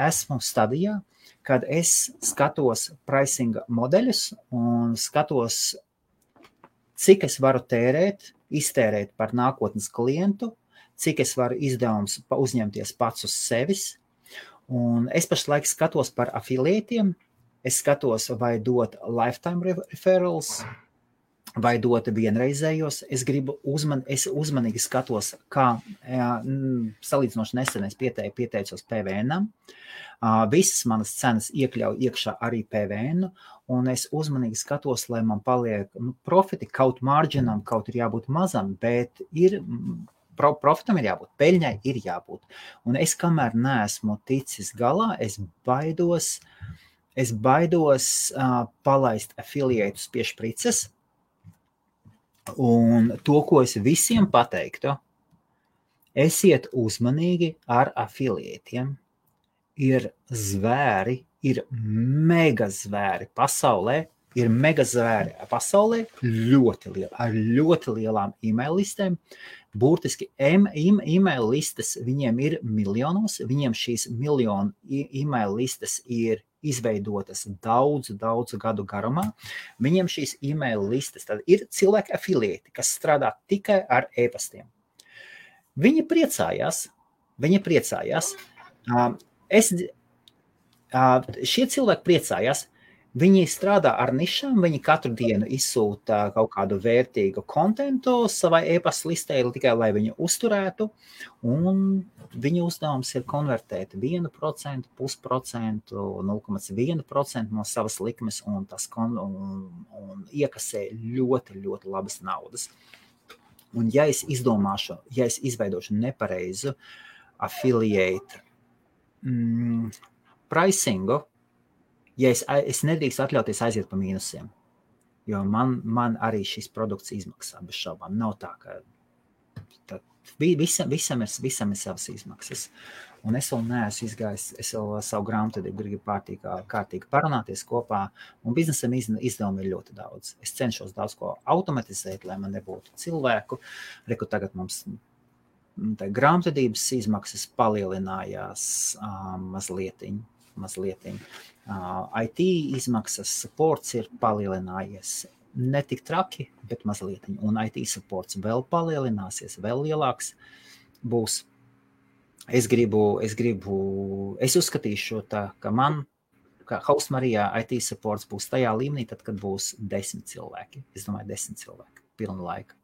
Speaker 1: esmu stadijā, kad es skatos pricinga modeļus un skatos, cik es varu iztērēt par nākotnes klientu, cik es varu izdevums uzņemties pats uz sevis. Un es pašlaik skatos par afiliētiem, es skatos, vai dot lifetime referrals, vai dot vienreizējos. Es uzmanīgi skatos, kā salīdzinoši nesen es pieteicos PVN-am. Visas manas cenas iekļauj iekšā arī PVN, un es uzmanīgi skatos, lai man paliek profiti, kaut marginam, kaut ir jābūt mazam, bet profitam ir jābūt, peļņai ir jābūt. Un es kamēr neesmu ticis galā, es baidos palaist afiliētus pie šprices, un to, ko es visiem pateiktu, esiet uzmanīgi ar afiliētiem. Ir zvēri, ir mega zvēri pasaulē, ļoti lieli, ar ļoti lielām e-mail listēm. Burtiski e-mail listes viņiem ir miljonos, viņiem šīs miljonu e-mail listes ir izveidotas daudzu gadu garumā. Viņiem šīs e-mail listes, tad ir cilvēki afiliēti, kas strādā tikai ar e-pastiem. Viņi priecājās. Šie cilvēki priecājās, viņi strādā ar nišām, viņi katru dienu izsūta kaut kādu vērtīgu kontentu savai e-pasta listē, tikai lai viņu uzturētu, un viņu uzdevums ir konvertēt 1%, 0,5%, 0,1% no savas likmes, un un iekasē ļoti labas naudas. Un ja es izveidošu nepareizu affiliate pricingu, ja es nedrīkst atļauties aiziet pa mīnusiem, jo man arī šis produkts izmaksā bez šaubām. Nav tā, ka visam ir savas izmaksas. Un es vēl neesmu izgājis, es vēl savu grāmatvedību gribu kārtīgi parunāties kopā, un biznesam izdevumi ir ļoti daudz. Es cenšos daudz ko automatizēt, lai man nebūtu cilvēku. Reku tagad mums grāmatvedības izmaksas palielinājās mazlietiņ. IT izmaksas, supports ir palielinājies. Ne tik traki, bet mazliet. Un IT supports vēl palielināsies, vēl lielāks būs. Es uzskatīšu tā, ka man, kā House Marijā, IT supports būs tajā līmenī, tad, kad būs 10 cilvēki. Es domāju, 10 cilvēki, pilna laika.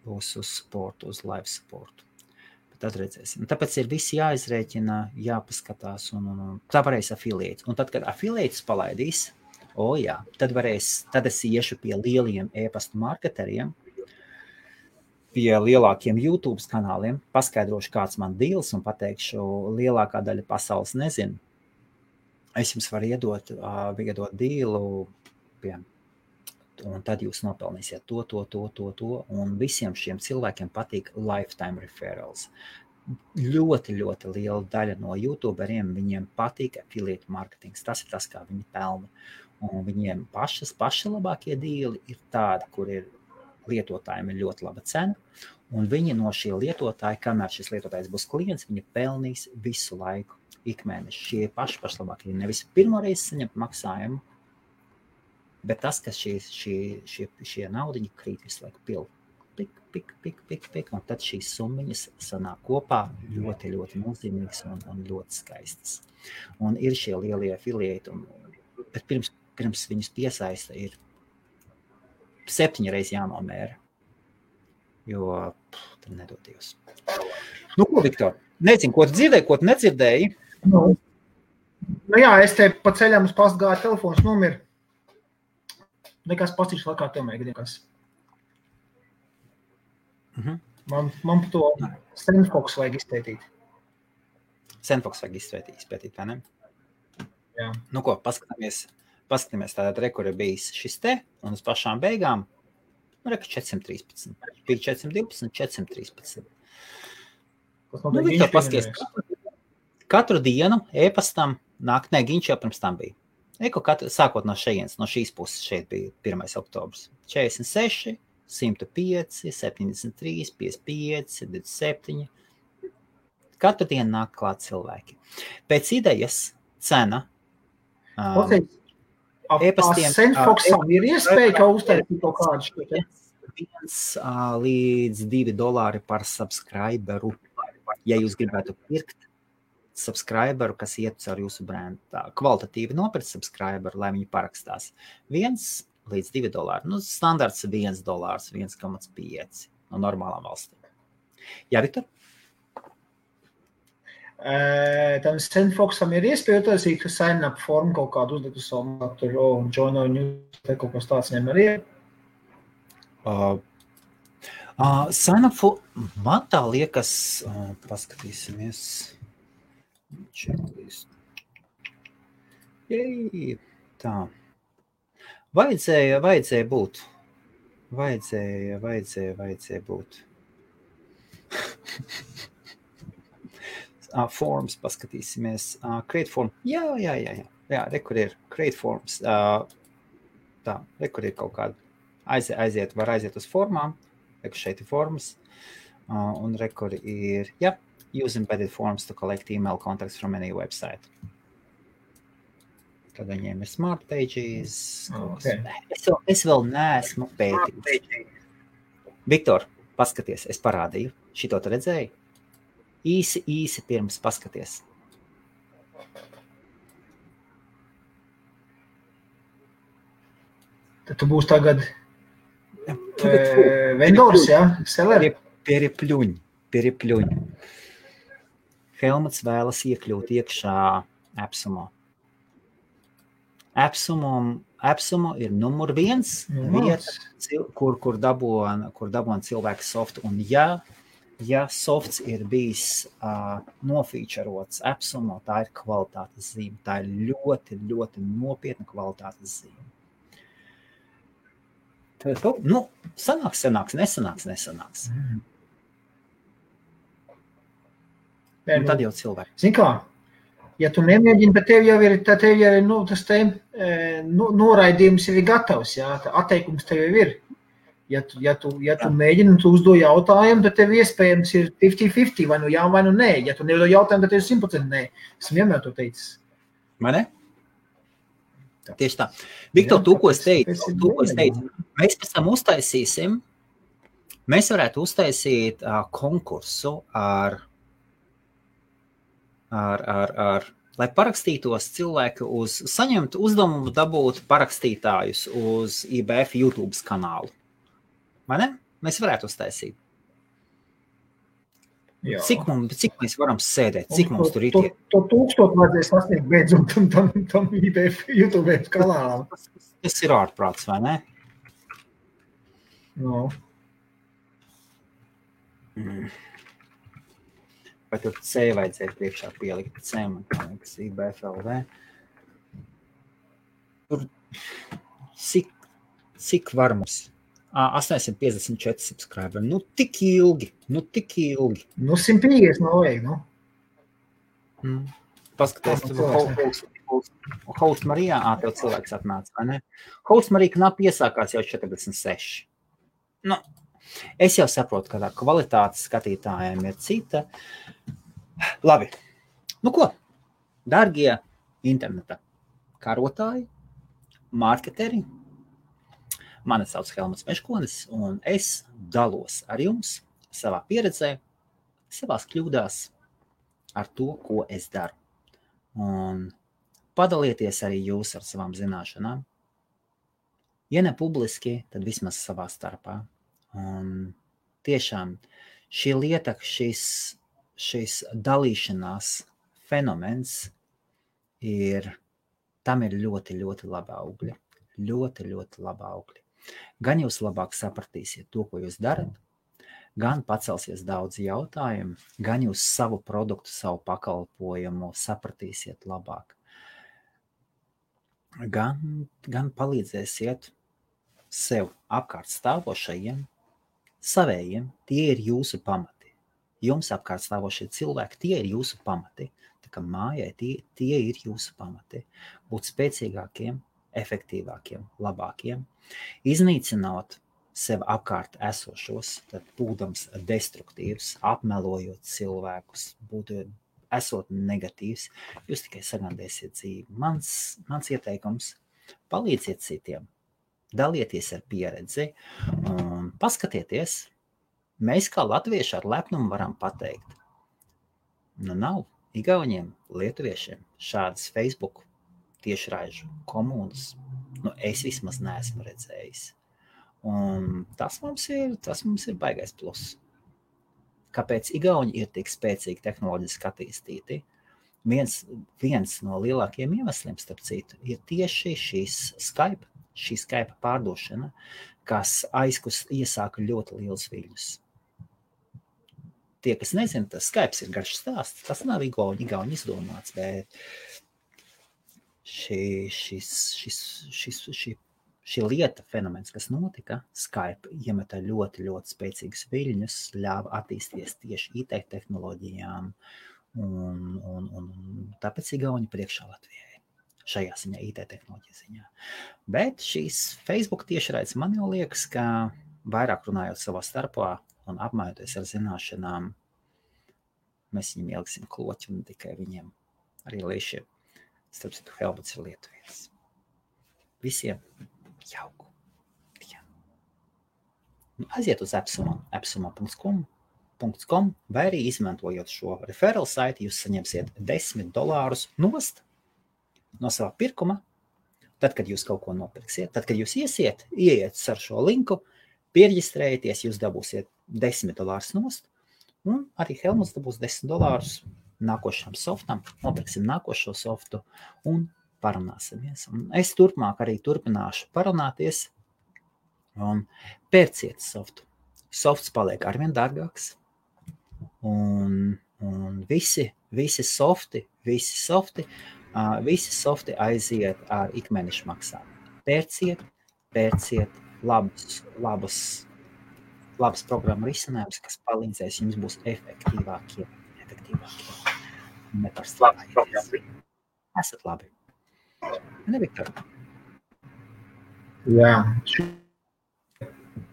Speaker 1: Būs uz supportu, uz live supportu. Bet tad redzēsim. Tāpēc ir visi jāizrēķina, jāpaskatās, un tā varēs affiliate. Un tad, kad affiliates palaidīs, tad es iešu pie lieliem e-pasta marketeriem, pie lielākiem YouTube kanāliem, paskaidrošu, kāds man deals un pateikšu, lielākā daļa pasaules nezinu. Es jums varu iedot dealu, un tad jūs nopelnīsiet to, un visiem šiem cilvēkiem patīk lifetime referrals. Ļoti, ļoti liela daļa no YouTuberiem, viņiem patīk affiliate marketings. Tas ir tas, kā viņi pelna. Un viņiem paši labākie deali ir tādi, kur ir lietotājiem ir ļoti laba cena, un viņi no šie lietotāji, kamēr šis lietotājs būs klients, viņi pelnīs visu laiku, ikmēneši. Šie paši labākie, nevis pirmoreiz saņemt maksājumu, bet tas, ka šie naudiņi krīt visu laiku pik, un tad šīs summiņas sanāk kopā ļoti, ļoti nozīmīgas un ļoti skaistas. Un ir šie lielie affiliate, bet pirms viņus piesaista ir 7 reizes jānomēra, jo tad nedod Dievs. Nu, ko, Viktor? Nezinu, ko tu dzirdēji, ko tu nedzirdēji?
Speaker 3: Nu jā, es te pa ceļam uz pastu gāju, telefons nomir. Nekas pastīšu laikā tev mēģinās. Man par to Sandfox vajag izpētīt.
Speaker 1: Sandfox vajag izpētīt, vai ne?
Speaker 3: Jā.
Speaker 1: Nu ko, paskatāmies tātad rekur ir bijis šis te, un uz pašām beigām, reka 413. Bija 412, 413. Viktor, paskaties, katru dienu e-pastam nāk, Giņš jau pirms tam bija. Sākot no šejienes, no šīs puses šeit bija 1. oktobrs. 46, 105, 73, 55, 27. Katru dienu nāk klāt cilvēki. Pēc idejas cena
Speaker 3: e-pastiem Sandfoxam ir iespēja, ka uztaisīt kaut kādu šo
Speaker 1: 1 līdz $2 par subscriberu. Ja jūs gribētu pirkt subscriberu, kas iet caur jūsu brendu, tā kvalitatīvi nopirkt subscriberu, lai viņi parakstās. 1 līdz $2. Nu, standarts $1, 1,5 no normālām valstīm. Jā, Viktor?
Speaker 3: Tam Sandfoxam ir iespēja utaisīt sign-up formu kaut kādu uzlikt uz savu maktu, un join our news, kaut kas tāds viņam arī ir.
Speaker 1: Sign-up formu, man tā liekas, paskatīsimies. Checklist. Jej, tā. Vajadzēja būt. Vajadzēja būt. Forms, paskatīsimies. Create form. Jā, rekur ir create forms. Tā, rekur ir kaut kāda. Var aiziet uz formām. Rekur šeit ir formas. Un rekur ir, use embedded forms to collect email contacts from any website. Tad viņiem ir smart pages. Okay. Es vēl neesmu pētījis. Viktor, paskaties, es parādīju. Šito tu redzēji? Īsi pirms paskaties.
Speaker 3: Tad tu būs tagad vendors, jā? Seller?
Speaker 1: Pieripļuņi. Helmuts vēlas iekļūt iekšā Epsumo. Epsumo ir numur 1 vieta, kur dabon cilvēku softu. Un ja softs ir bijis nofīčerots Epsumo, tā ir kvalitātes zīme. Tā ir ļoti, ļoti nopietna kvalitātes zīme. Nu, sanāks, nesanāks. Un tad jau cilvēki.
Speaker 3: Zini kā, ja tu nemēģini, bet tev jau ir tas te noraidījums jau ir gatavs, jā, atteikums tev jau ir. Ja tu mēģini un tu uzdo jautājumu, tad tev iespējams ir 50-50, vai nu jā, vai nu nē. Ja tu neuzdo jautājumu, tad tev ir 100% nē. Esmu vienmēr to teicis.
Speaker 1: Vai ne? Tieši tā. Viktor, tu, ko es teicu, mēs pēc tam uztaisīsim, mēs varētu uztaisīt konkursu lai parakstītos cilvēki saņemt uzdevumu dabūt parakstītājus uz IBF YouTube kanālu. Vai ne? Mēs varētu uztaisīt. Jā. Cik mēs varam sēdēt, cik mums tur ir tie?
Speaker 3: To 1000 vajadzēs sasniegt beidzot tam IBF YouTube kanālam.
Speaker 1: Tas ir ārprāts, vai ne?
Speaker 3: No.
Speaker 1: Vai tur C vajadzēja priekšā pielikt C, man liekas, IBF LV. Tur cik var mums? 854 subscriberi. Nu, tik ilgi.
Speaker 3: 150 nav vajag,
Speaker 1: Paskaties, Host Marijā, tev cilvēks atnāca, vai ne? Host Marija knapi iesākās jau 46. Nu, es jau saprotu, ka tā kvalitāte skatītājiem ir cita. Labi. Nu ko? Dargie interneta karotāji, marketeri, mani sauc Helmuts Meškonis, un es dalos ar jums savā pieredzē, savās kļūdās ar to, ko es daru. Un padalieties arī jūs ar savām zināšanām. Ja ne publiski, tad vismaz savā starpā. Un tiešām šī lieta, šis dalīšanās fenomens tam ir ļoti, ļoti laba augļa. Ļoti, ļoti laba augļa. Gan jūs labāk sapratīsiet to, ko jūs darat, gan pacelsies daudz jautājumu, gan jūs savu produktu, savu pakalpojumu sapratīsiet labāk. Gan palīdzēsiet sev apkārt stāvošajiem, savējiem, tie ir jūsu pamati. Jums apkārt stāvošie cilvēki, tie ir jūsu pamati. Tā kā mājai tie ir jūsu pamati. Būt spēcīgākiem, efektīvākiem, labākiem, iznīcinot sev apkārt esošos, tad būdams destruktīvs, apmelojot cilvēkus, esot negatīvs, jūs tikai sagandēsiet dzīvi. Mans ieteikums – palīdziet citiem, dalieties ar pieredzi un paskatieties, mēs kā latvieši ar lepnumu varam pateikt. Nu nav igauņiem, lietuviešiem šādas Facebook tiešraižu komunas, es vismaz neesmu redzējis. Un tas mums ir baigais plus. Kāpēc igauņi ir tik spēcīgi tehnoloģiski attīstīti? Viens no lielākajiem iemesliem, starp citu, ir tieši šī Skype pārdošana, kas iesāka ļoti liels viļņus. Tie, kas nezina, tas Skype ir garš stāsts, tas nav igauņi izdomāts, bet šī lieta, fenomens, kas notika, Skype iemeta ļoti, ļoti spēcīgus viļņus, ļāva attīstīties tieši IT tehnoloģijām, un tāpēc igauņi priekšā Latvijai šajā ziņā, IT tehnoloģija ziņā. Bet šīs Facebook tiešraides man jau liekas, ka vairāk runājot savā starpā un apmainoties ar zināšanām, mēs viņiem ieliksim kloķi un tikai viņiem arī liešiem. Starp citu, Helmuts ir lietuvietis. Visiem jauku dienu. Aiziet uz epsuma.com vai arī izmantojot šo referral saiti, jūs saņemsiet $10 nost no savā pirkuma. Tad, kad jūs kaut ko nopirksiet, tad, kad jūs ieiet ar šo linku, pierģistrējieties, jūs dabūsiet $10 nost, un arī Helmuts dabūs $10 nākošam softam, nopirksim nākošo softu un parunāsimies. Un es turpmāk arī turpināšu parunāties un pērciet softu. Softs paliek arvien dārgāks un visi softi aiziet ar ikmēneša maksājumu. Pērciet labas programmu risinājumus, kas palīdzēs jums būs efektīvākie. Esat labi. Ne, Viktor?
Speaker 3: Jā.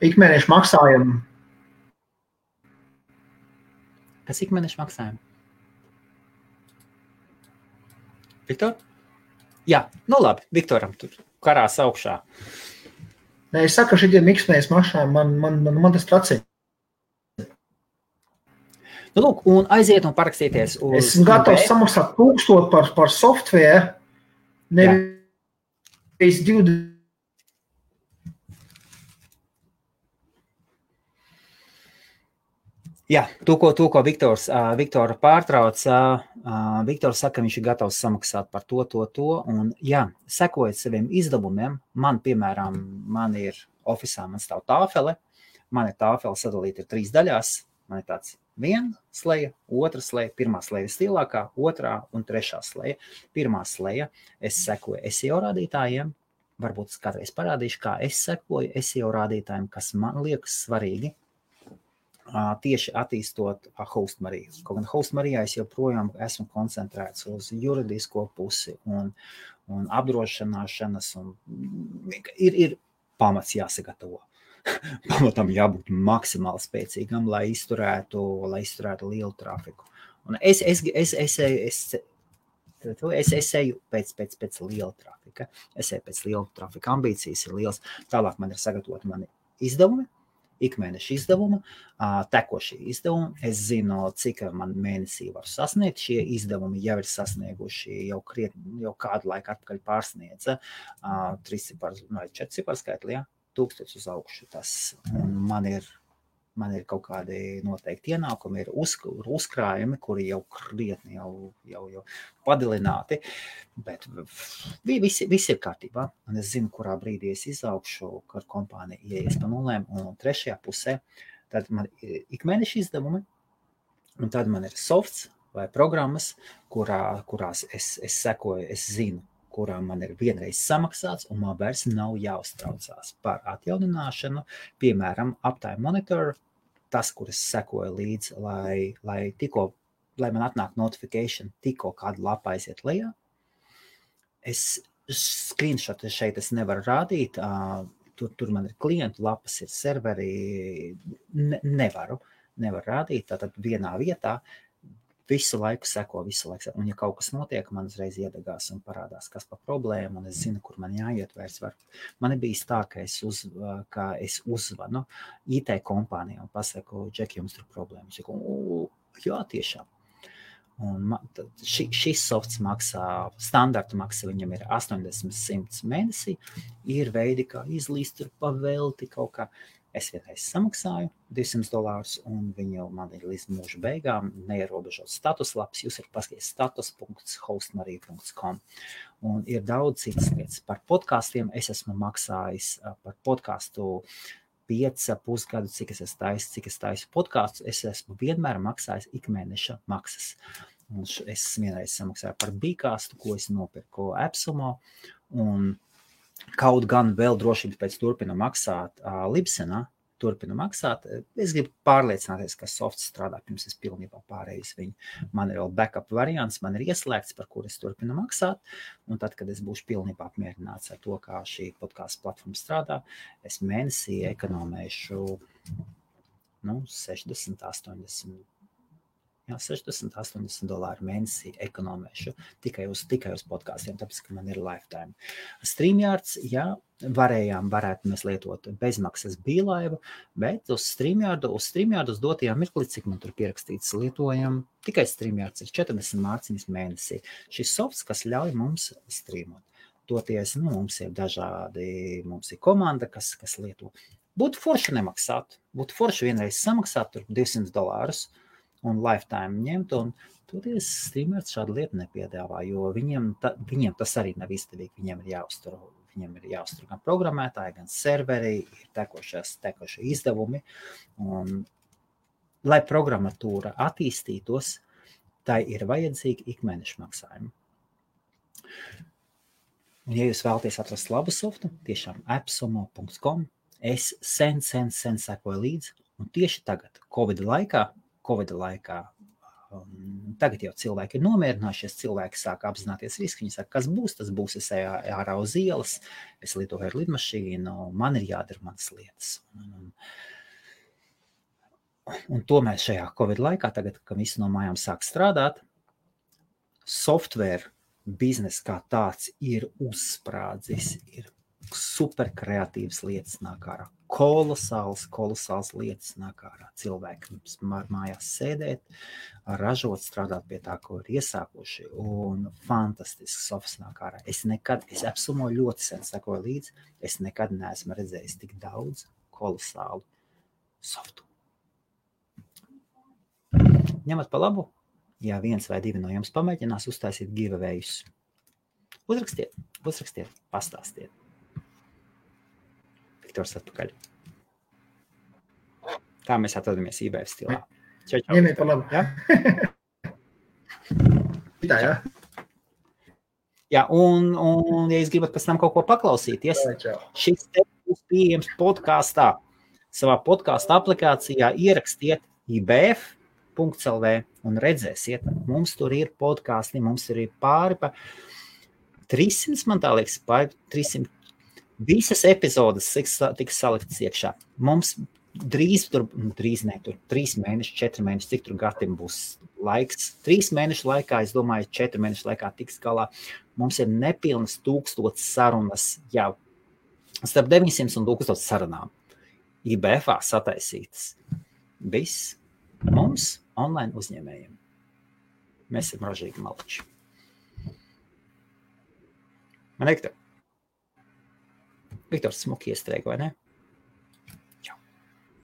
Speaker 3: Ikmēneša maksājumu.
Speaker 1: Kas ikmēneša maksājumu? Viktor? Jā, nu labi, Viktoram tur karās augšā.
Speaker 3: Nē, es saku, ka šitiem miksmējas mašām man tas tracē.
Speaker 1: Nu, lūk, un aiziet un parakstīties uz...
Speaker 3: Esmu gatavs samaksāt 1000 par software, nevis 20.
Speaker 1: Jā, to, ko Viktora pārtrauc, Viktors saka, ka viņš ir gatavs samaksāt par to, un jā, sekojot saviem izdevumiem, piemēram, man ir ofisā, man stāv tāfele, man ir tāfele sadalīta 3 daļās, man ir tāds 1 sleja, 2 sleja, 1 sleja vislielākā, 2 un 3 sleja. 1 sleja, es sekoju SEO rādītājiem, varbūt es kādreiz parādīšu, kā es sekoju SEO rādītājiem, kas man liekas svarīgi, tieši attīstot Hostmariju. Kaut gan Hostmarijā es joprojām esmu koncentrēts uz juridisko pusi un apdrošināšanas, un ir pamats jāsagatavo. Pamatam jābūt maksimāli spēcīgam, lai izturētu lielu trafiku. Un es eju pēc liela trafika. Es eju pēc liela trafika. Ambīcijas ir liels. Tālāk man ir sagatavoti mani izdevumi, ikmēneša izdevuma, tekošie izdevumi. Es zinu, cik man mēnesī var sasniegt. Šie izdevumi jau ir sasnieguši, jau kādu laiku atpakaļ pārsniedza 3 ciparu vai 4 ciparu skaitli, jā. 1000 uz augšu. Man ir kaut kādi noteikti ienākumi, ir uzkrājumi, kuri jau krietni jau padilināti, bet visi ir kārtībā. Un es zinu, kurā brīdī es izaugšu, kad kompānija ieies pa nulēm, un 3. pusē tad man ir ikmēneša izdevumi, un tad man ir softs vai programmas, kurās es sekoju, es zinu, kurām man ir vienreiz samaksāts, un man vairs nav jāuztraucās par atjaunināšanu. Piemēram, Uptime Monitor, tas, kur es sekoju līdzi, lai man atnāk notification, tikko kāda lapa aiziet lejā. Es screenshot šeit es nevaru rādīt, tur man ir klientu lapas, ir serveri, nevaru rādīt, tātad vienā vietā. Visu laiku seko, un ja kaut kas notiek, man uzreiz iedegās un parādās, kas par problēmu, un es zinu, kur man jāiet vairs var. Man ir bijis tā, ka es uzvanu IT kompānijā un pasaku, Džeki, jums tur problēmas. Jā, tiešām. Un šis softs maksā, standarta maksa viņam ir 80-100 mēnesī, ir veidi, kā izlīst tur pavelti kaut kā. Es vienreiz samaksāju $200, un viņu man ir līdz mūža beigām neierobežot statuslaps. Jūs varat paskatīties status.hostmarija.com. Un ir daudz citas lietas. Par podkāstiem es esmu maksājis par podkāstu 5,5 gadu, cik es taisu podkāstus. Es esmu vienmēr maksājis ikmēneša maksas. Un es vienreiz samaksāju par Bīkāstu, ko es nopirku Epsumo, un kaut gan vēl drošības pēc turpina maksāt Libsenā, Es gribu pārliecināties, ka softs strādā, pirms es pilnībā pārējis viņu. Man ir vēl backup variants, man ir ieslēgts, par kur es turpinu maksāt, un tad, kad es būšu pilnībā apmierināts ar to, kā šī podkāstu platforma strādā, es mēnesī ekonomēšu $60-80 mēnesī ekonomēšu tikai uz podkāstiem, tāpēc, ka man ir lifetime. StreamYards, jā, varētu mēs lietot bezmaksas bīlaivu, bet uz StreamYard uz dotajā mirklī, cik man tur pierakstīts, lietojam tikai StreamYards ir 40 mārciņas mēnesī. Šis softs, kas ļauj mums streamot. Toties, mums ir dažādi, mums ir komanda, kas lieto. Būtu forši nemaksāt, būtu forši vienreiz samaksāt tur $200, un lifetime ņemt, un toties StreamYards šādu lietu nepiedāvā, jo viņiem tas arī nav izdevīgi, viņiem ir jāuztur gan programmētāji, gan serveri, ir tekošie izdevumi, un lai programmatūra attīstītos, tai ir vajadzīgi ikmēneša maksājumi. Un ja jūs vēlaties atrast labu softu, tiešām appsumo.com, es sen sekoju līdzi, un tieši tagad, Covid laikā, tagad jau cilvēki ir nomierinājušies, cilvēki sāk apzināties risku, viņi saka, kas būs, tas būs, es eju ārā uz ielas, es lietoju ar lidmašīnu, man ir jādara manas lietas. Un tomēr šajā Covid laikā, tagad, kad visi no mājām sāk strādāt, software biznes kā tāds ir uzsprādzis, ir super kreatīvas lietas nāk ārā. Kolosāls lietas nāk ārā. Cilvēki mājās sēdēt, ražot, strādāt pie tā, ko ir iesākuši, un fantastisks softs nāk ārā. Es apsumoju ļoti sen sekoju līdzi, es nekad neesmu redzējis tik daudz kolosālu softu. Ņemat pa labu, ja 1 vai 2 no jums pamēģinās uztaisīt giveawayus. Uzrakstiet, pastāstiet. Viktors atpakaļ. Tā mēs atrodamies eBay stilā. Čau.
Speaker 3: Ņemiet pa labu.
Speaker 1: Ja?
Speaker 3: Tā, jā.
Speaker 1: Jā, un ja jūs gribat pēc tam kaut ko paklausīties, šis te būs pieejams podkastā. Savā podkasta aplikācijā ierakstiet ibf.lv un redzēsiet, mums tur ir podkasti, mums tur ir pāri pa 300, man tā liekas, pāri 300. Visas epizodes tiks saliktas iekšā. Mums drīz 3 mēneši, 4 mēneši, cik tur gatim būs laiks. 3 mēnešu laikā, es domāju, 4 mēnešu laikā tiks galā. Mums ir nepilnas 1000 sarunas jau. Starp 900 un 1000 sarunām. IBF-ā sataisītas. Viss mums online uzņēmējiem. Mēs esam ražīgi maliči. Man Viktors smuki iestrēga, vai ne?